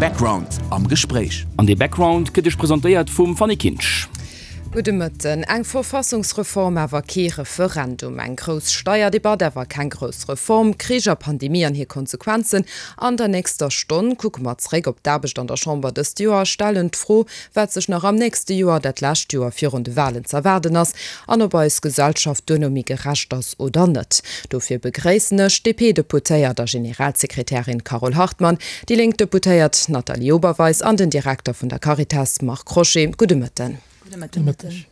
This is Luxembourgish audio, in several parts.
Background am Gespréich. An dee Background gëtt Iech presentéiert vum Fanny Kinsch. Gudde Mëtten. Eng Verfassungsreform, awer kee Referendum. Eng grouss Steierdebatt, awer keng grouss Reform. Krich a Pandemie an hir Konsequenzen. An der nächster Stonn kucke mer zeréck op d'Aarbecht an der Chamber dëst Joer a stellen d'Fro, wat sech nach am nächste Joer, dat lescht Joer virun de Walen, z'erwaarden ass an ob eis Gesellschaft duerno méi gerecht ass oder net. Dofir begréissen ech d'DP-Deputéiert a Generalsekretärin Carole Hartmann, déi lénk Deputéiert Nathalie Oberweis an den Direkter vun der Caritas Marc Crochet. Gudde Mëtten. Gudde Mëtteg.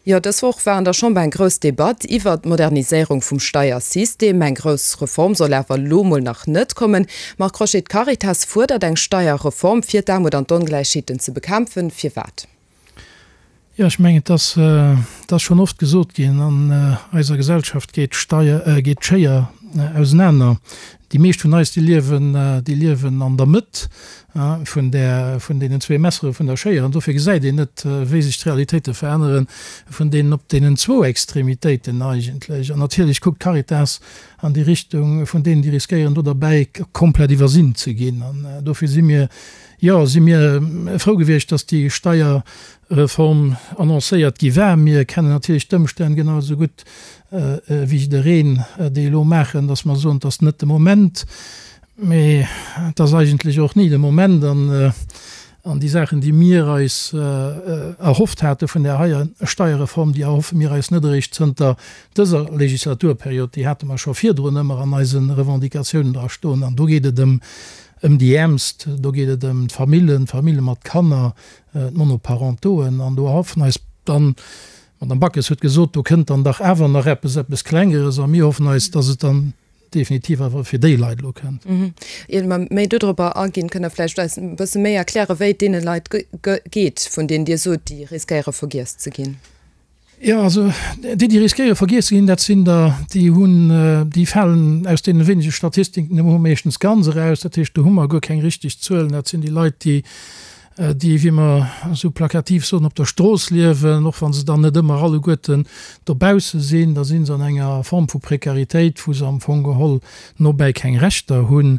Jo, dës Woch war an der Chamber eng grouss Debatt iwwert d'Moderniséierung vum Steiersystem. Eng grouss Reform soll awer elo mol nach net kommen. Marc Crochet, d'Caritas fuerdert eng Steierreform, fir d'Aarmut an d'Ongläichheeten ze bekämpfen. Firwat? Jo, ech mengen, et ass, et ass schonn oft gesot ginn, an eiser Gesellschaft geet d'Steier, geet d'Schéier ausenaner. Déi meescht vun eis, déi liewen, déi liewen an der Mëtt vun där, vun deenen zwee Messere vun der Schéier. An dofir gesäit een net, wéi sech d'Realitéite verännere vun deenen op deenen zwou Extremitéiten eigentlech. An natierlech kuckt d'Caritas an déi Richtung vun deenen, déi riskéieren, do derbäi komplett iwwersinn ze ginn. An dofir si mir, jo, si mir frou gewiescht, dass déi Steierreform annoncéiert gi war. Mir kennen natierlech d'Ëmstänn genau esou gutt wéi jiddereen, déi elo maachen, dass mer soen, et ass net de Moment, mee et ass eigentlech och ni de Moment. An déi Saachen, déi mir eis erhofft hate vun där heier Steierreform, déi erhoffe mir eis net eréischt zënter dëser Legislaturperiod, déi hate mer scho virdrun ëmmer an eise Revendicatiounen dra stoen. An do geet et ëm déi Äermst, do geet et ëm d'Famillen, d'Famille mat Kanner, d'Monoparentoen. An do erhoffen eis dann, D'Madame Backes huet gesot, do kënnt dann dach awer nach eppes, eppes Klengeres, a mir hoffen eis, dass et dann definitiv awer fir déi Leit elo kënnt. Ier mer méi dodropper aginn, kënnt Der vläicht eis e bësse méi erklären, wéi et deene Leit geet, vun deenen Dir sot, déi riskéiere vergiess ze ginn? Jo, also déi, déi riskéiere vergiess ze ginn, dat sinn der, déi hunn, déi falen aus deene wéinege Statistiken, déi mer hu meeschtens ganz eraus. Dat heescht, do hu mer guer keng richteg Zuelen. Dat sinn déi Leit, déi déi, wéi mer esou plakativ soen, op der Strooss liewen, och wa se dann net ëmmer alleguerten dobausse sinn, da si se an enger Form vu Prekaritéit, wou se am Fong geholl nobäi keng Rechter hunn.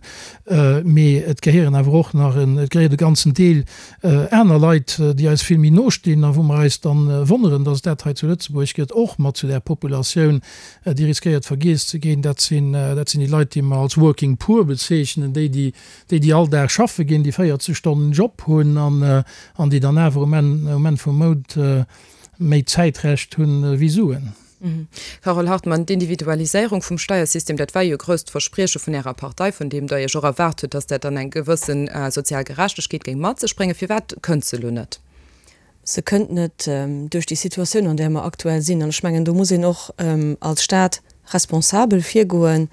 Mee et gehéieren awer och nach en, et gehéiert e ganzen Deel aner Leit, déi eis vill méi no stinn a wou mer eis dann wonneren, dass et dat hei zu Lëtzebuerg gëtt, och mat zu där Populatioun, déi riskéiert vergiess ze ginn. Dat sinn, dat sinn déi Leit, déi mer als Working Poor bezeechnen, déi, déi déi déi all Dag schaffe ginn, déi 40 Stonnen Job hunn an déi dann awer um Enn um Enn vum Mount méi Zäitrecht hunn ewéi Suen. Carole Hartmann, D'Individualiséierung vum Steiersystem, dat war jo e grousst Versprieche vun Ärer Partei, vun deem Der Iech och erwaart hutt, datt dat dann eng gewësse sozial Gerechtegkeet géing mat sech bréngen. Firwat kënnt se elo net? Se kënnt net duerch déi Situatioun, an där mer aktuell sinn. An ech mengen, do muss een och als Stat responsabel virgoen.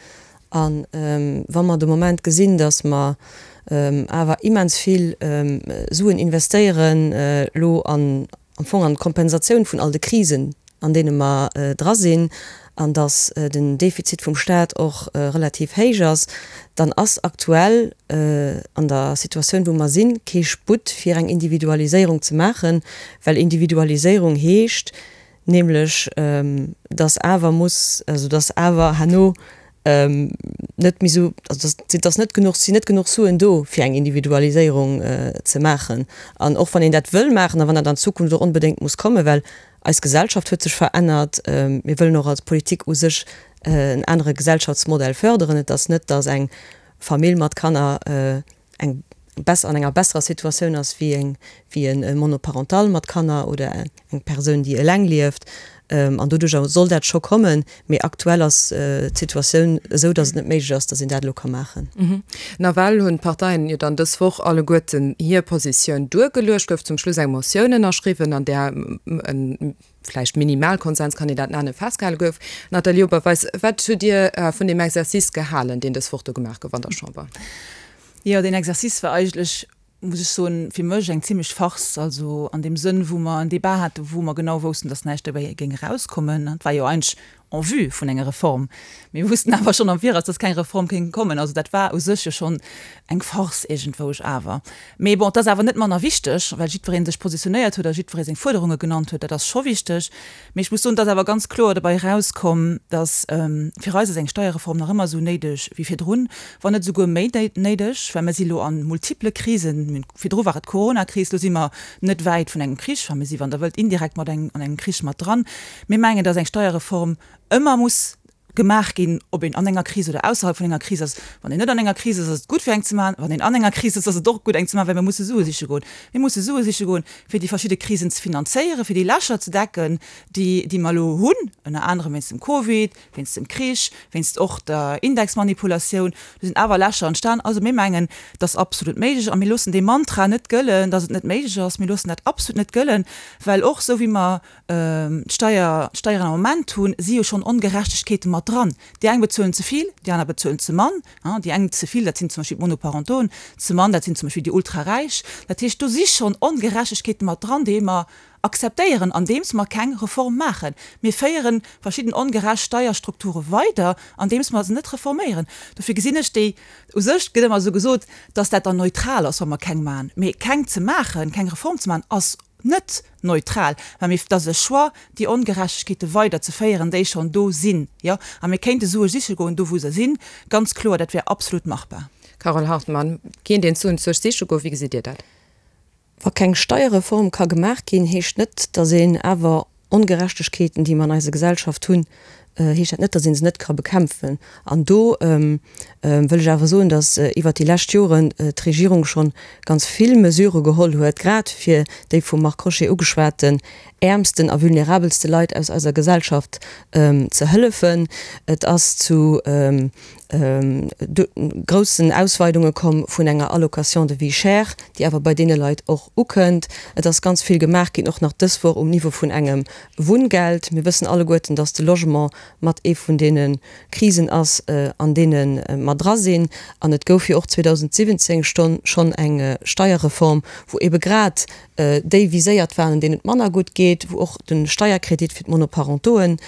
A wa mer de Moment gesinn, datt mer awer immens vill Suen investéieren elo an am Fong an d'Kompensatioun vun all de Krisen, an deene mer dra sinn, an datt den Defizit vum Stat och relativ héich ass, dann ass aktuell an der Situatioun, wou mer sinn, kee Sputt fir eng Individualiséierung ze maachen, well Individualiséierung heescht nämlech, datt awer muss, also datt awer herno net méi esou, also datt ass net genuch, sinn net genuch Suen do fir eng Individualiséierung ze maachen. An och wann een dat wëll maachen a wann dat an Zukunft och onbedéngt muss kommen, well eis Gesellschaft huet sech verännert, mir wëllen och als Politik u sech en anere Gesellschaftsmodell förderen. Et ass net, datt eng Famill mat Kanner eng besser, an enger besserer Situatioun ass wéi eng, wéi e Monoparental mat Kanner oder eng Persoun, déi eleng lieft. An doduercher soll dat scho kommen. Mee aktuell ass d'Situatioun esou, datt et net méiglech ass, datt een dat elo ka maachen. Nawell hunn d'Parteien jo dann dës Woch alleguerten hir Positioun duergeluecht. Gouf zum Schluss eng Motioun ënnerschriwwen, an där e vläicht Minimalkonsens, kann een dat nennen, festgehale gouf. Nathalie Oberweis, wat hutt Dir vun deem Exercice gehalen, deen dës Woch do gemaach gouf an der Chamber? Jo, deen Exercice war eigentlech, muss ech soen, fir mech eng zimlech Farce. Also an deem Sënn, wou mer en Débat haten, wou mer genau woussten, dass näischt dobäi géing erauskommen. Et war jo eigentlech. en vue vun enger Reform. Mir wussten awer schonn am Viraus, dass keng Reform kéint kommen. Also dat war u sech jo schonn eng Farce iergendwousch awer. Mee bon, et ass awer net manner wichteg, well jiddweree sech positionéiert huet a jiddweree seng Fuerderunge genannt huet. Dat ass scho wichteg. Mee ech muss soen, et ass awer ganz kloer dobäi erauskomm, dass fir eis ass eng Steierreform nach ëmmer esou néideg wéi virdrun, wann net esouguer méi néideg, well mir si lo a multiple Krisen. Virdru war et d'Coronakris, lo si mer net wäit vun engem Krich, enfin mir si, wann Der wëllt, indirekt mat engem an engem Krich mat dran. Mir mengen, dass eng Steierreform ëmmer muss gemaach ginn, ob een an enger Kris oder ausserhalb vun enger Kris ass. Wann een net an enger Kris ass, ass et gutt fir eng ze maachen. Wann een an enger Kris ass, ass et och gutt eng ze maachen, well mir musse Sue siche goen. Mir musse Sue siche goen, fir déi verschidde Krisen ze finanzéieren, fir déi Lächer ze decken, déi, déi mer elo hunn, ënner anerem wéinst dem Covid, wéinst dem Krich, wéinst och der Indexmanipulatioun. Do sinn awer Lächer entstan. Also mir mengen, et ass absolut méiglech a mir loossen dee Mantra net gëllen, dass et net méiglech ass. Mir loossen dat absolut net gëllen, well och esou wéi mer d'Steier, d'Steieren am Moment hunn, si jo schonn Ongerechtegkeete mat dran. Déi eng bezuelen ze vill, déi aner bezuelen ze mann. Déi eng ze vill, dat sinn zum Beispill d'Monoparentoen, ze mann, dat sinn zum Beispill déi Ultraräich. Dat heescht, do si schonn Ongerechtegkeete mat dran, déi mer akzeptéieren, andeems mer keng Reform maachen. Mir féiere verschidden ongerecht Steierstrukture weider, andeems mer se net reforméieren. Dofir gesinn ech déi, u sech gëtt ëmmer esou gesot, dass dat dann neutral ass, wa mer keng maachen. Mee keng ze maachen, keng Reform ze maachen, ass net neutral, well mir, et ass e Choix, déi Ongerechtegkeete weider ze féieren, déi schonn do sinn, jo. A mir kéinte Sue siche goen, do wou se sinn, ganz kloer, dat wär absolut machbar. Carole Hartmann, Kéint een d'Suen zuech siche goen? Wéi gesitt Dir dat? Wa keng Steierreform ka gemaach ginn, heescht net, datt een awer Ongerechtegkeeten, déi mer an eiser Gesellschaft hunn, heescht dat net, datt ee se net ka bekämpfen. An do wëll ech awer soen, datt iwwert déi lescht Joren d'Regierung schonn ganz vill Mesurë geholl huet, grad fir déi vum Marc Crochet ugeschwaten äermsten a vulnerabelste Leit aus eiser Gesellschaft ze hëllefen. Et ass zu groussen Ausweidunge komm vun enger Allocation de vie chère, déi awer bei deene Leit och ukënnt. Et ass ganz vill gemaach ginn, och nach dës Woch um Niveau vun engem Wunngeld. Mir wëssen alleguerten, dass de Logement mat ee vun deene Krisen ass, an deene mer dra sinn. An et gouf jo och 2017 schonn eng Steierreform, wou ebe grad déi viséiert waren, deenen et manner gutt geet, wou och de Steierkredit fir d'Monoparentoen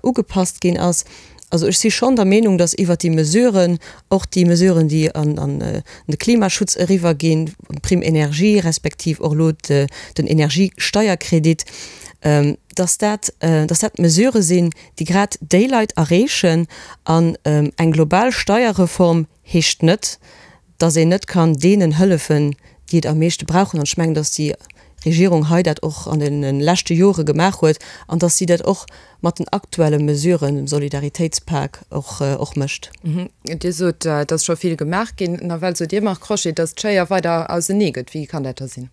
ugepasst ginn ass. Also ech si schonn der Meenung, datt iwwert déi Mesuren, och déi Mesuren, déi an de Klimaschutz eriwwerginn, d'Prime énergie respektiv och elo den Energiesteierkredit, datt dat, datt dat Mesurë sinn, déi grad déi Leit erreechen. An eng global Steierreform heescht net, dass een net kann deenen hëllefen, déi et am meeschte brauchen. An ech mengen, dass déi Regierung hei dat och an de leschte Jore gemaach huet an dass si dat och mat den aktuelle Mesuren, dem Solidaritéitspak, och, och mécht. Dir sot, et ass scho vill gemaach ginn. Nawell sot Dir, Marc Crochet, dass d'Schéier weider ausenee gëtt. Wéi kann dat da sinn?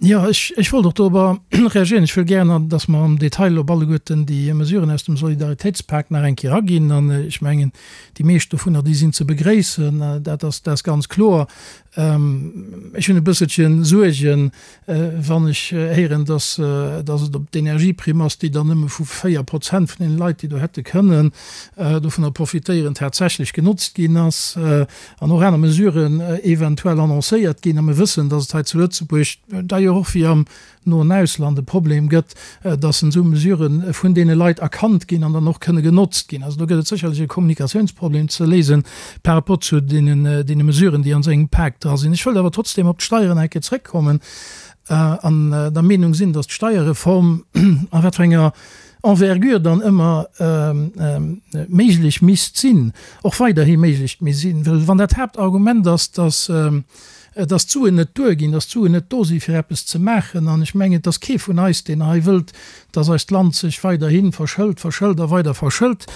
Jo, ech, ech wollt och dorobber reagieren. Ech wëll gären, dass mer am Detail op alleguerten déi Mesuren aus dem Solidaritéitspak nach eng Kéier aginn. An ech mengen, déi meescht dovunner, déi sinn ze begréissen. Dat ass, dat ass ganz kloer. Ech hunn e bësselche Suergen, wann ech héieren, dass, dass et op d'Energieprimm ass, déi dann nëmme vu 4 Prozent vun deene Leit, déi do hätte kënnen dovunner profitéieren, tatsächlech genotzt ginn ass. an och aner Mesuren eventuell annoncéiert ginn, a mir wëssen, datt et hei zu Lëtzebuerg, d'ailleurs och wéi am noen Ausland, e Problem gëtt, datt esou Mesurë vun deene Leit erkannt ginn an dann och kënne genotzt ginn. Also do gëtt et sécherlech e Kommunikatiounsproblem ze léisen par rapport zu deenen, deene Mesuren, déi an esou engem Pak dra sinn. Ech wëllt awer trotzdem op d'Steieren eng Kéier zrëckkommen an der Meenung sinn, datt d'Steierreform, a wat fir enger Envergure dann ëmmer méiglech misst sinn, och weiderhi méiglech misst sinn. Well wann dat Haaptargument ass, dass, dass d'Suen net duerginn, dass d'Suen net do si fir eppes ze maachen, an ech mengen, et ass kee vun eis, deen hei wëllt, dass eist Land sech weiderhi verschëlt, verschëlt a weider verschëlt,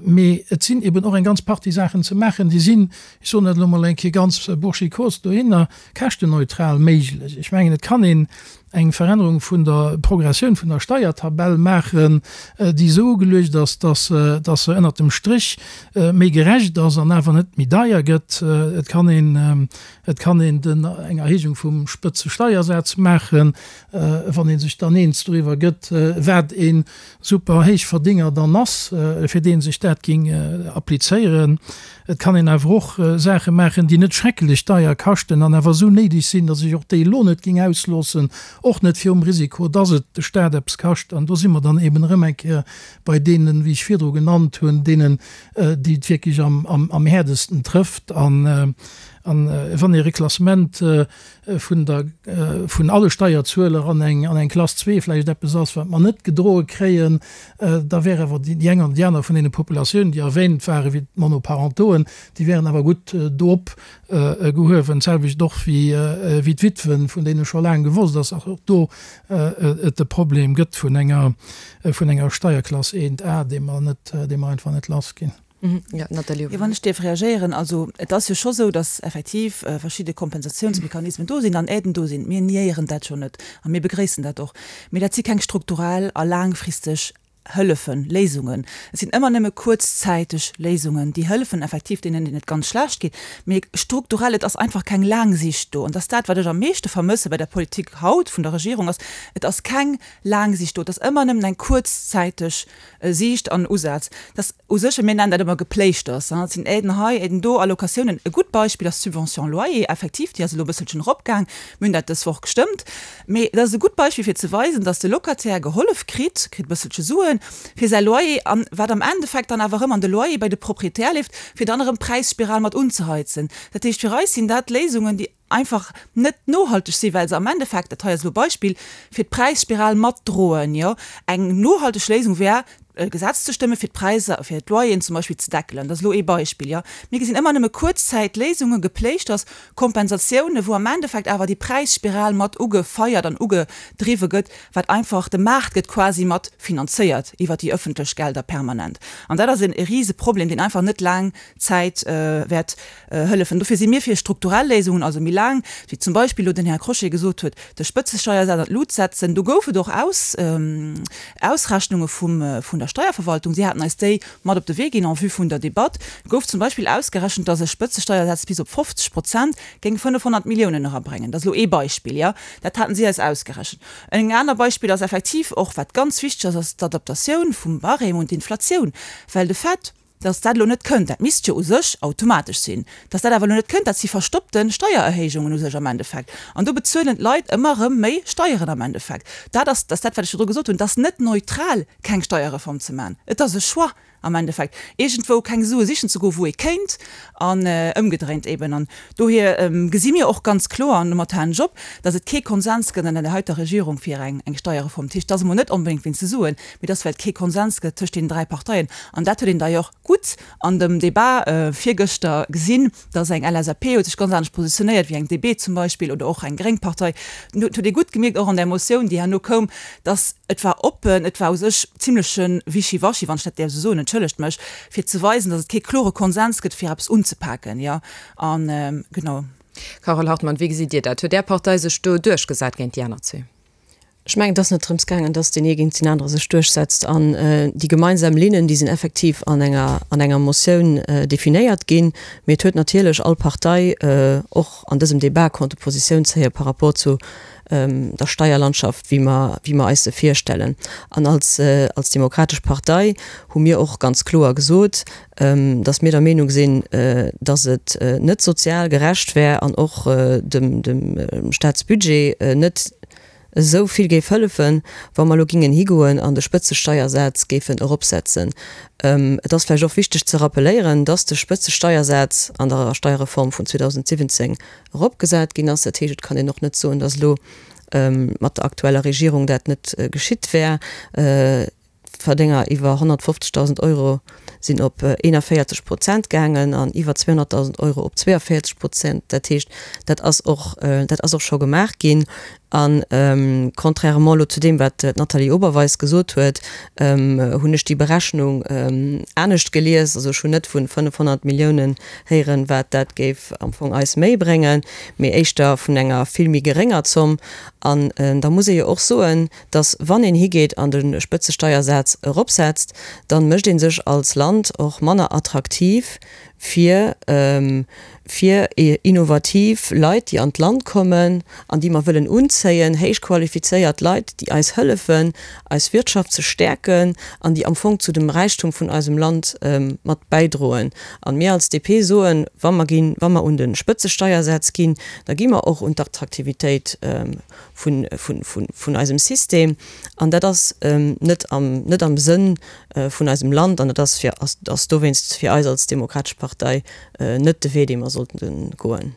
mee et sinn eben och eng ganz Partie Saachen ze maachen, déi sinn, ech soen dat elo mol eng Kéier ganz burschikos dohinner, käschtenneutral méiglech. Ech mengen, et kann een eng Verännerung vun der Progressioun vun der Steiertabell maachen, déi esou ugeluecht ass, dass dass se ënnert dem Stréch méi gerecht ass an awer net méi deier gëtt. Et kann een et kann een den eng Erhéijung vum Spëtzesteiersaz maachen, wann ee sech dann eens doriwwer gëtt, wat ee Super-Héichverdénger dann ass, fir dee. sech dat géing applizéieren. Et kann een awer och Saache maachen, déi net schrecklech deier kaschten an awer esou néideg sinn, datt ech och déi elo net géing ausloossen, och net virum Risiko, datt et de Stat eppes kascht. An do si mer dann eben erëm eng Kéier bei deenen, wéi ech virdru genannt hunn, deenen, déi et wierklech am häerdesten trëfft. An wann ee Reklassement vun der, vun alle Steierzueler an eng, an eng Klass zwee vläicht eppes ass, wat mer net gedroe kréien, da wär awer déi eng an déi aner vun deene Populatiounen, déi erwähnt waren, wéi d'Monoparentoen, déi wären awer gutt do opgehuewen. D'selwecht och wéi, wéi d'Witwen, vun deene scho laang gewosst ass, dass och do et e Problem gëtt vun enger, vun enger Steierklass 1a, déi mer net, déi mer einfach net lassginn. Jo, Nathalie. Jo, wann ech dierf reagéieren, also et ass jo scho sou, datt effektiv verschidde Kompensatiounsmechanismen do sinn an Aiden do sinn. Mir niéieren dat jo net a mir begréissen dat och. Mee dat si keng strukturell a laangfristeg Hëllefen, Léisungen. Et sinn ëmmer nëmme kuerzzäiteg Léisungen, déi hëllefen effektiv deenen, deenen et ganz schlecht geet. Mee strukturell, et ass einfach keng laang Sicht do. An dat ass dat, wat ech am meeschte vermësse bei der Politik haut vun der Regierung, ass, et ass keng laang Sicht do. Et ass ëmmer nëmmen eng kuerzzäiteg Siicht an Usaz. Dat u sech, mir nennen dat ëmmer Gepléischters, et sinn Aiden hei, Aiden do, Allocatiounen. E gutt Beispill ass d'Subvention loyer, effektiv, déi ass elo e bësselchen eropgaang, mir hunn dat dës Woch gestëmmt, mee dat ass e gutt Beispill fir ze weisen, datt de Locataire gehollef kritt, kritt e bësselche Suen fir säi Loyer an wat am Endeffekt dann awer erëm an de Loyer bei de Proprietär leeft, fir dann erëm d'Präisspiral mat unzeheizen. Dat heescht, fir eis sinn dat Léisungen, déi einfach net nohalteg sinn, well se am Endeffekt, dat hei ass elo e Beispill, fir d'Präisspiral matdroen. Jo, eng nohalteg Léisung wär, e Gesetz ze stëmmen, fir d'Präisser, fir d'Loyeren zum Beispill ze deckelen. Dat ass elo ee Beispill, jo. Mir gesinn ëmmer nëmme Kuerzzäitléisungen, Gepléischters, Kompensatiounen, wou am Endeffekt awer déi Präisspiral mat ugefeiert an ugedriwwe gëtt, wat einfach, de Maart gëtt quasi mat finanzéiert iwwert déi ëffentlech Gelder permanent. An dat ass e Riseproblem, deen einfach net laang Zäit wäert hëllefen. Dofir si mir fir strukturell Léisungen, also méi laang, wéi zum Beispill elo den Här Crochet gesot huet, de Spëtzesteiersaz an d'Lut setzen. Do gouf et och Ausrechnunge vum der Steierverwaltung. Si haten eis déi mat op de Wee ginn en vue vun der Debatt. Gouf zum Beispill ausgerechent, dass e Spëtzesteiersaz bis op 50 Prozent géing 500 Milliounen erabréngen. Dat ass elo ee Beispill, jo. Dat haten si eis ausgerechent. En aner Beispill ass effektiv och, wat ganz wichteg ass, ass d'Adaptatioun vum Barème un d'Inflatioun, well de Fait, Dass dat elo net kënnt, dat misst jo u sech automatesch sinn, dass dat awer elo net kënnt, dat si verstoppte Steiererhéijungen u sech am Endeffekt. An do bezuelen d'Leit ëmmer erëm méi Steieren am Endeffekt. Dat ass, dat ass dat, wat ech virdru gesot hunn, et ass net neutral, keng Steierreform ze maachen. Et ass e Choix am Endeffekt, iergendwou keng Sue sichen ze goen, wou ee kéint, an ëmgedréint eben. An dohier gesi mir och ganz kloer, an domat halen ech op, dass et kee Konsens gëtt an der heiter Regierung fir eng Steierreform. Dat heescht, et ass emol net onbedéngt wéinst de Suen, mee dass well et kee Konsens gëtt tëscht deenen 3 Parteien, an dat huet een d'ailleurs gutt an dem Débat virgëschter gesinn, dass eng LSAP huet sech ganz anescht positionéiert wéi eng DB zum Beispill oder och eng gréng Partei. Dat huet ee gutt gemierkt och an där Motioun, déi herno koum, dass et war oppen, et war u sech zimleche Wischiwaschi, wann ech dat däerf esou soen, entschëllegt mech, fir ze weisen, dass et kee klore Konsens gëtt fir eppes unzepaken, jo, a genau. Carole Hartmann, wéi gesitt Dir dat? Huet Är Partei sech do duerchgesat géint déi aner zwee? Ech mengen, et ass net drëms gaangen, dass deen ee géint deen anere sech duerchsetzt. An déi gemeinsam Linnen, déi sinn effektiv an enger, an enger Motioun definéiert ginn. Mee et huet natierlech all Partei och an dësem Débat konnte Positioun zéie par rapport zu der Steierlandschaft, wéi mer, wéi mer eis se virstellen. An als, als Demokratesch Partei hu mir och ganz kloer gesot, dass mir der Meenung sinn, dass et net sozial gerecht wär an och dem, dem Staatsbudget net esou vill géif hëllefen, wa mer elo gingen higoen an de Spëtzesteiersaz géifen eropsetzen. Et ass vläicht och wichteg ze rappeléieren, dass de Spëtzesteiersaz an der Steierreform vun 2017 eropgesat ginn ass. Dat heescht, et kann een och net soen, dass elo mat der aktueller Regierung dat net geschitt wär. D'Verdénger iwwer 150.000 Euro sinn op 41 Prozent gaangen an iwwer 200.000 Euro op 42 Prozent. Dat heescht, dat ass och, dat ass och scho gemaach ginn. A contrairement elo zu deem, wat d'Nathalie Oberweis gesot huet, hunn ech déi Berechnung anescht gelies. Also ech hunn net vu 500 Milliounen héieren, wat dat géif am Fong eis méi bréngen, mee éischter vun enger vill méi gerénger Zomm. An da muss ee jo och soen, dass wann een higeet an de Spëtzesteiersaz eropsetzt, dann mécht ee sech als Land och manner attraktiv. fir, fir innovativ Leit, déi an d'Land kommen an déi mer wëllen unzéien, héich qualifizéiert Leit, déi eis hëllefen, eis Wirtschaft ze stäerken an déi am Fong zu dem Räichtum vun eisem Land mat bäidroen. An mir als DP soen, wa mer ginn, wa mer un de Spëtzesteiersätz ginn, da gi mer och un d'Attraktivitéit vun, vun, vun, vun eisem System. An dat ass net am, net am Sënn vun eisem Land an dat ass fir, ass, ass dowéinst fir eis als Demokratesch Partei net de Wee, dee mer sollten goen.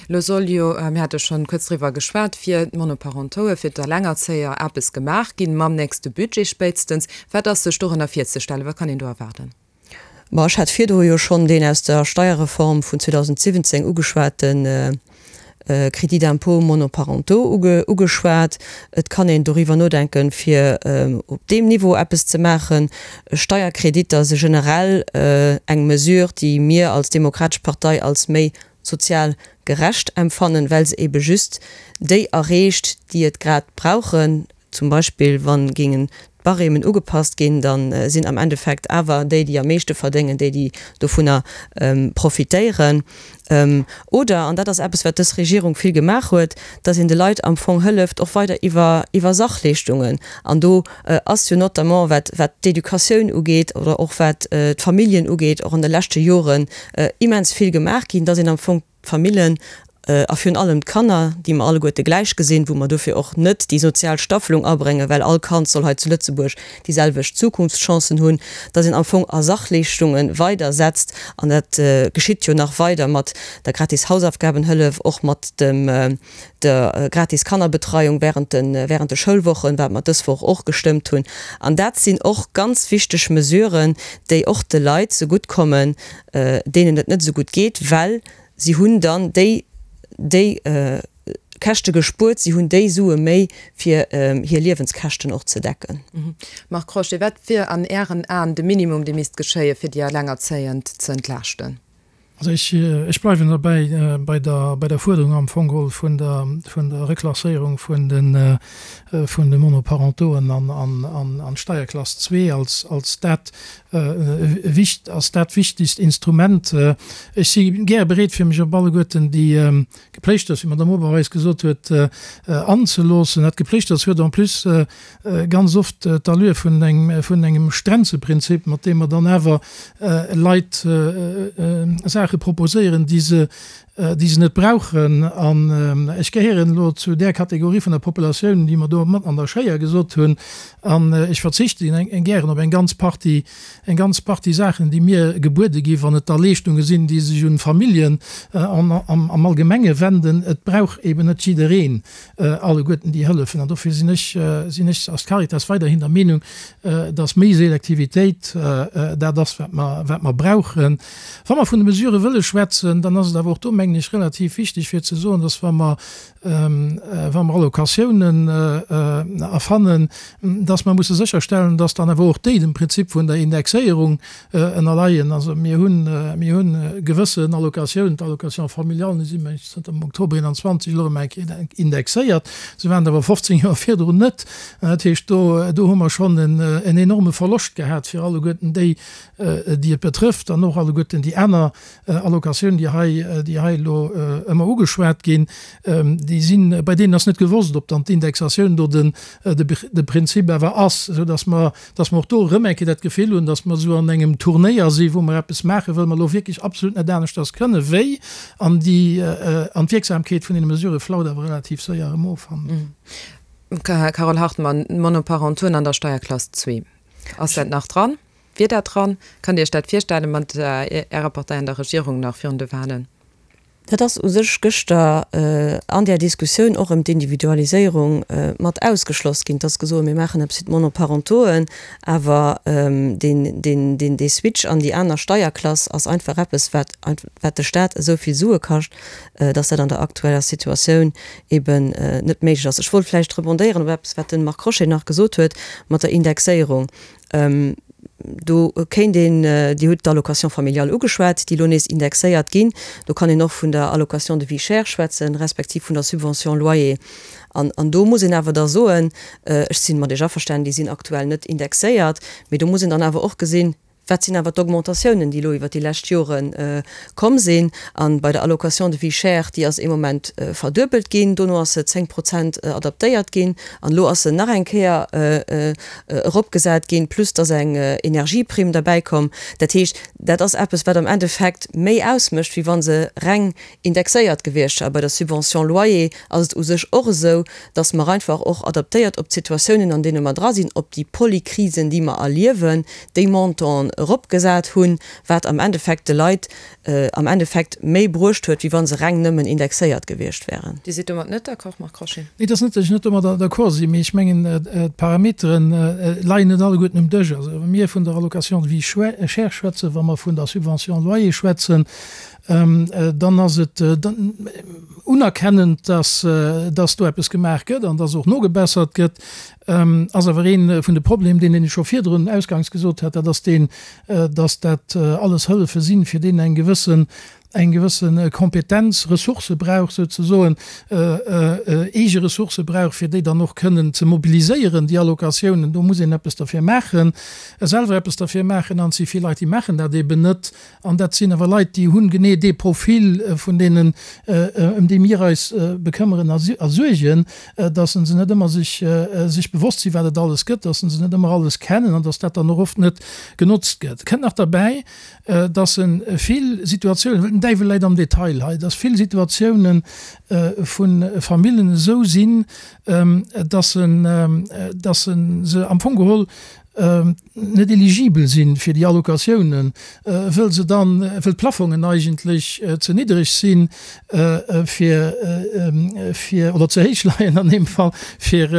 Elo soll jo, mir hate schonn kuerz driwwer geschwat, fir d'Monoparentoue, fir d'Alengerzéier eppes gemaach ginn, mam nächste Budget spéitstens. Wat ass sech dorënner virzestellen? Wat kann een do erwaarden? Ma ech hat virdru jo schonn deen aus der Steierreform vun 2017 ugeschwate Crédit d'impôt monoparentaux ugeschwat. Et kann een doriwwer nodenken, fir op deem Niveau eppes ze maachen. Steierkreditter si generell eng Mesure, déi mir als Demokratesch Partei als méi sozial gerecht empfannen, well se ebe just déi erreecht, déi et grad brauchen. Zum Beispill wa géingen d'Barêmen ugepasst ginn, da sinn am Endeffekt awer déi, déi am meeschte verdéngen, déi, déi dovunner profitéieren. Oder, an dat ass eppes, wat dës Regierung vill gemaach huet, datt een de Leit am Fong hëlleft, och weider iwwer, iwwer Sachleeschtungen. An do ass jo notamment, wat, wat d'Educatioun ugeet oder och wat d'Familljen ugeet, och an de leschte Joren immens vill gemaach ginn, datt een am Fong d'Famillen a virun allem d'Kanner, déi mer alleguerte gläich gesinn, wou mer dofir och net déi sozial Staffelung abréngen, well all Kand soll hei zu Lëtzebuerg déi selwecht Zukunftschancen hunn, dass een am Fong a Sachleeschtunge weider setzt. An dat geschitt jo nach weider mat der gratis Hausaufgabenhëllef, och mat dem der gratis Kannerbetreiung während de während de Schoulwochen, wat mer dës Woch och gestëmmt hunn. An dat sinn och ganz wichteg Mesuren, déi och de Leit zegutt kommen, deenen et net esou gutt geet, well si hunn dann déi déi Käschte gespuert, si hunn déi Sue méi fir hir Liewenskäschten och ze decken. Marc Crochet, Wat wier an Ären Aen de Minimum, dee misst geschéie fir déi Elengerzéiend ze entlaaschten? Also ech, ech bleiwen derbäi bei der, bei der Fuerderung am Fong geholl vun der, vun der Reklasséierung vun de, vun de Monoparentoen an, an, an, an d'Steierklass zwee als, als dat wicht, als dat wichtigst Instrument. Ech si gäre bereet fir mech op alleguerten déi Gepléischters, wéi d'Madame Oberweis gesot huet, anzeloossen. Dat Gepléischters huet en plus ganz oft d'Allure vun engem, vun engem Stränzeprinzip, mat deem mer dann awer Leit Saache proposéieren, déi se, déi se net brauchen. An ech gehéieren elo zu där Kategorie vun der Populatioun, déi mer do mat an der Schéier gesot hunn, an ech verzichte gären op eng ganz Partie, eng ganz Partie Saachen, déi mir gebuede ginn, wann et da Leeschtunge sinn, déi sech un d'Familljen am Allgemenge wenden. Et brauch eben net jiddereen alleguerten déi Hëllefen. An dofir sinn ech, sinn ech als Caritas weiderhin der Meenung, dass méi Selektivitéit dat ass, wat mer, wat mer brauchen. Wa mer vun de Mesurë wëlle schwätzen, dann ass et awer och do, mengen ech, relativ wichteg fir ze soen, dass wa mer, wa mer Allocatiounen erfannen, dass mer musse sécherstellen, dass dann awer och déi dem Prinzip vun der Indexéierung ënnerleien. Also mir hunn, mir hunn gewëssen Allocatiounen, d'Allocation familiale, déi si mengen ech zënter dem Oktober 21 elo erëm eng Kéier indexéiert, se waren et awer 15 Joer virdrun net. Dat heescht, do, do hu mer schonn en enorme Verloscht gehat fir alleguerten déi, déi et betrëfft, an och alleguerten déi aner Allocatiounen, déi hei, déi hei elo ëmmer ugeschwat ginn, déi sinn, bei deenen ass net gewosst, ob dann d'Indexatioun do den, de Prinzip awer ass, esou dass mer, dass mer och do erëm eng Kéier dat Gefill hunn, dass mer esou an engem Turnéier sinn, wou mer eppes maachen, wëll mer elo wierklech absolut net aneschters kënnen, wéi, an déi, an d'Wierksamkeet vun deene Mesurë flaut awer relativ séier erëm of. Carole Hartmann, Monoparentauxen an der Steierklass zwee, ass dat nach dran? Wier dat dran? Kënnt Dir Iech dat virstellen, mat Ärer Partei an der Regierung nach virun de Wahlen? Dat ass u sech gëschter an där Diskussioun och ëm d'Individualiséierung mat ausgeschloss ginn. Et ass gesot, mir maachen eppes fir d'Monoparentoen, awer deen, dee Switch an déi aner Steierklass ass einfach eppes, wat, wat de Stat esou vill Sue kascht, dass dat an der aktueller Situatioun eben net méiglech ass. Ech wollt vläicht rebondéieren op eppes, wat de Marc Crochet nach gesot huet mat der Indexéierung. Do kéint een, Dir hutt d'Allocation familiale ugeschwat, déi elo nees indexéiert ginn. Do kann een och vun der Allocation de vie chère schwätzen, respektiv vun der Subvention loyer. An, an do muss een awer da soen, ech si mat Iech averstanen, déi sinn aktuell net indexéiert, mee do muss een dann awer och gesinn, Wat sinn awer d'Augmentatiounen, déi elo iwwert déi lescht Jore komm sinn? A bei der Allocation de vie chère, déi ass ee Moment verduebelt ginn, dono ass se 10 Prozent adaptéiert ginn an elo ass se nach eng Kéier eropgesat ginn, plus dass eng Energieprimm derbäikomm. Dat heescht, dat ass eppes, wat am Endeffekt méi ausmécht, wéi wa se reng indexéiert gewiescht wär. A bei der Subvention loyer ass et u sech och esou, dass mer einfach och adaptéiert op d'Situatiounen, an deene mer dra sinn, op déi Polykrisen, déi mer erliewen, déi Montanten eropgesat hunn, wat am Endeffekt de Leit am Endeffekt méi bruecht huet, wéi wa se reng nëmmen indexéiert gewiescht wären. Dir sidd domat net d'accord, Marc Crochet? Nee, et ass net, datt ech net domadder d'accord sinn, mee ech mengen, d'Parametere leien net alleguerten um Dësch. Also wa mir vun der Allocation de vie chère schwätzen, wa mer vun der Subvention loyer schwätzen, dann ass et unerkennend, dass do eppes gemaach gëtt an dass och nogebessert gëtt, ass awer ee vun de Problemen, deen ech scho virdrun ausgangs gesot hat, dat ass deen, dass dat alles Hëllefe sinn, fir deenen eng gewëssen, eng gewësse Kompetenz, Ressourcë brauch souzesoen, eege Ressourcë brauch, fir déi dann och kënnen ze mobiliséieren, déi Allocatiounen. Do muss een eppes derfir maachen, selwer eppes derfir maachen an et si vill Leit, déi maachen dat eben net. An dat sinn awer Leit, déi hunn genee dee Profil vun deenen, ëm déi mir eis bekëmmeren a suergen, dass se net ëmmer sech sech bewosst sinn, wat et alles gëtt, dass se net ëmmer alles kennen an dass dat dann och oft net genotzt gëtt. Kënnt nach derbäi, dass se vill Situatiounen, well den Däiwel läit am Detail hei, dass vill Situatiounen vu Famillen esou sinn, dass se dass se am Fong geholl net eligibel sinn fir déi Allocatiounen, wëll se dann, wëll d'Plafongen eigentlech ze niddereg sinn fir, fir, oder ze héich leien an deem Fall, fir,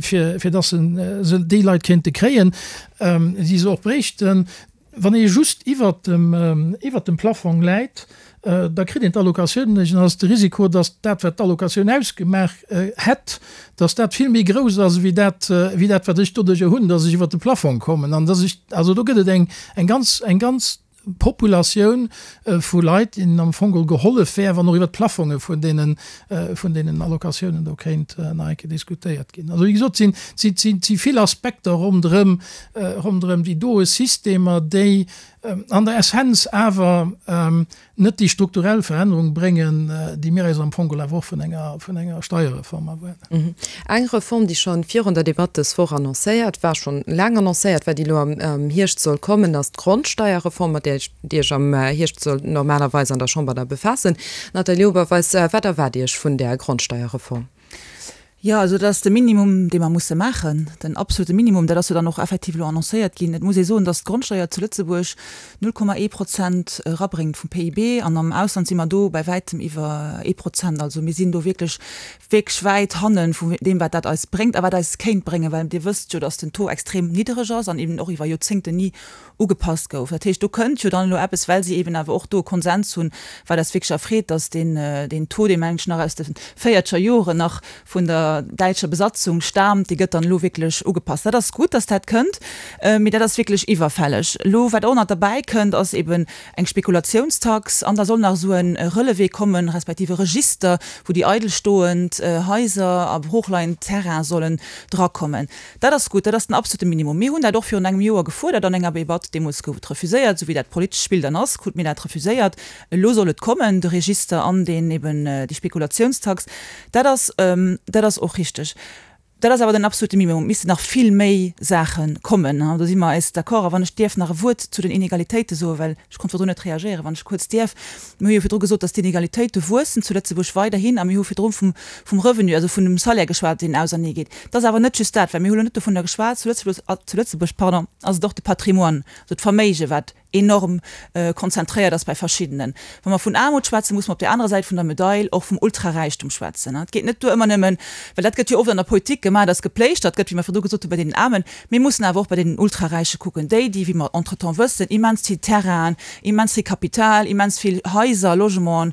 fir, fir dass se déi Leit kéinte kréien, déi se och bréichten. Wann ee just iwwert dem, iwwert dem Plafong läit, da kritt een d'Allocatioun net. Dann ass de Risiko, datt dat, wat d'Allocatioun ausgemaach hätt, datt dat vill méi grouss ass wéi dat, wéi dat, wat ech doduerjer hunn, datt ech iwwert de Plafong kommen. An datt ech, also do gëtt et eng, eng ganz, eng ganz Populatioun vu Leit, deenen am Fong geholl gehollef wär, wann och iwwert d'Plafonge vun deenen, vun deenen Allocatiounen do kéint nach eng Kéier diskutéiert ginn. Also wéi gesot, sinn, si, si, si vill Aspekter ronderëm, ronderëm déi doe Systemer, déi an der Essenz awer net déi strukturell Verännerung bréngen, déi mir eis am Fong geholl awer och vun enger, vun enger Steierreform erwaarden. Eng Reform, déi scho virun der Debatt dës Woch annoncéiert war, schonn laang annoncéiert war, déi elo am Hierscht soll kommen, ass d'Grondsteierreform, mat där Dir Iech am Hierscht sollt normalerweis an der Chamber da befaassen. Nathalie Oberweis, wat erwaart Dir Iech vun där Grondsteierreform? Jo, also dat ass de Minimum, dee mer musse maachen, den absolute Minimum. Dat ass jo dann och effektiv elo annoncéiert ginn. Et muss ee soen, datt d'Grondsteuer zu Lëtzebuerg 0,1 Prozent erabréngt vum PIB an am Ausland si mer do bäi wäitem iwwer ee Prozent. Also mir sinn do wierklech, wierklech wäit hanne vu deem, wat dat eis bréngt a wat eis kéint bréngen, well Dir wësst jo, datt den Taux extrem niddereg ass an eben och iwwer Joerzéngten ni ugepasst gouf. Dat heescht, do kënnt jo dann elo eppes, well si eben awer och do e Konsens hunn, wat eis wierklech erfreet, dass deen, deen Taux, dee mengen ech nach aus de véierzeger Joren nach vun der däitscher Besatzung staamt, dee gëtt dann elo wierklech ugepasst. Dat ass gutt, dass dat kënnt, mee dat ass wierklech iwwerfälleg. Elo, wat och nach derbäi kënnt, ass eben eng Spekulationstax an da soll nach esou e Relevé kommen, respektiv e Register, wou déi eidelstoend Haiser a broochleiend Terraine sollen drakommen. Dat ass gutt, dat ass den absolute Minimum. Mir hunn dat och virun engem Joer gefuerdert an enger Debatt. Deemools gouf et refuséiert, esou wéi dat politescht Spill dann ass, krute mir dat refuséiert. Elo soll et kommen, de Register an deen eben déi Spekulationstax. Dat ass, dat ass och richteg. Dat ass awer den absolute Minimum. Et missten nach vill méi Saache kommen. Do si mer eis d'accord. A wann ech dierf nach e Wuert zu den Inegalitéite soen, well ech konnt virdrun net reagéieren, wann ech kuerz dierf. Mir hu jo virdru gesot, dass d'Inegalitéite wuessen zu Lëtzebuerg weiderhin a mir hu virdru vum, vum Revenu, also vun dem Salaire geschwat, deen auserneegeet. Et ass awer net just dat, well mir hu lo net dovunner geschwat, zu Lëtzebuerg, zu Lëtzebuerg, pardon, ass et och de Patrimoine, also d'Verméige wat enorm konzentréiert ass bei verschiddenen. Wa mer vun Aarmut schwätzen, muss mer op där anerer Säit vun der Medail och vum Ultraräichtum schwätzen. Et geet net duer ëmmer nëmmen, well dat gëtt jo oft an der Politik gemaach, dass gepléischtert gëtt, wéi mer virdru gesot hu bei deenen Aarmen, Mir mussen awer och bei deenen Ultraräiche kucken, déi, déi, wéi mer entretemps wëssen, immens vill Terrainen, immens vill Kapital, immens vill Haiser, Logementen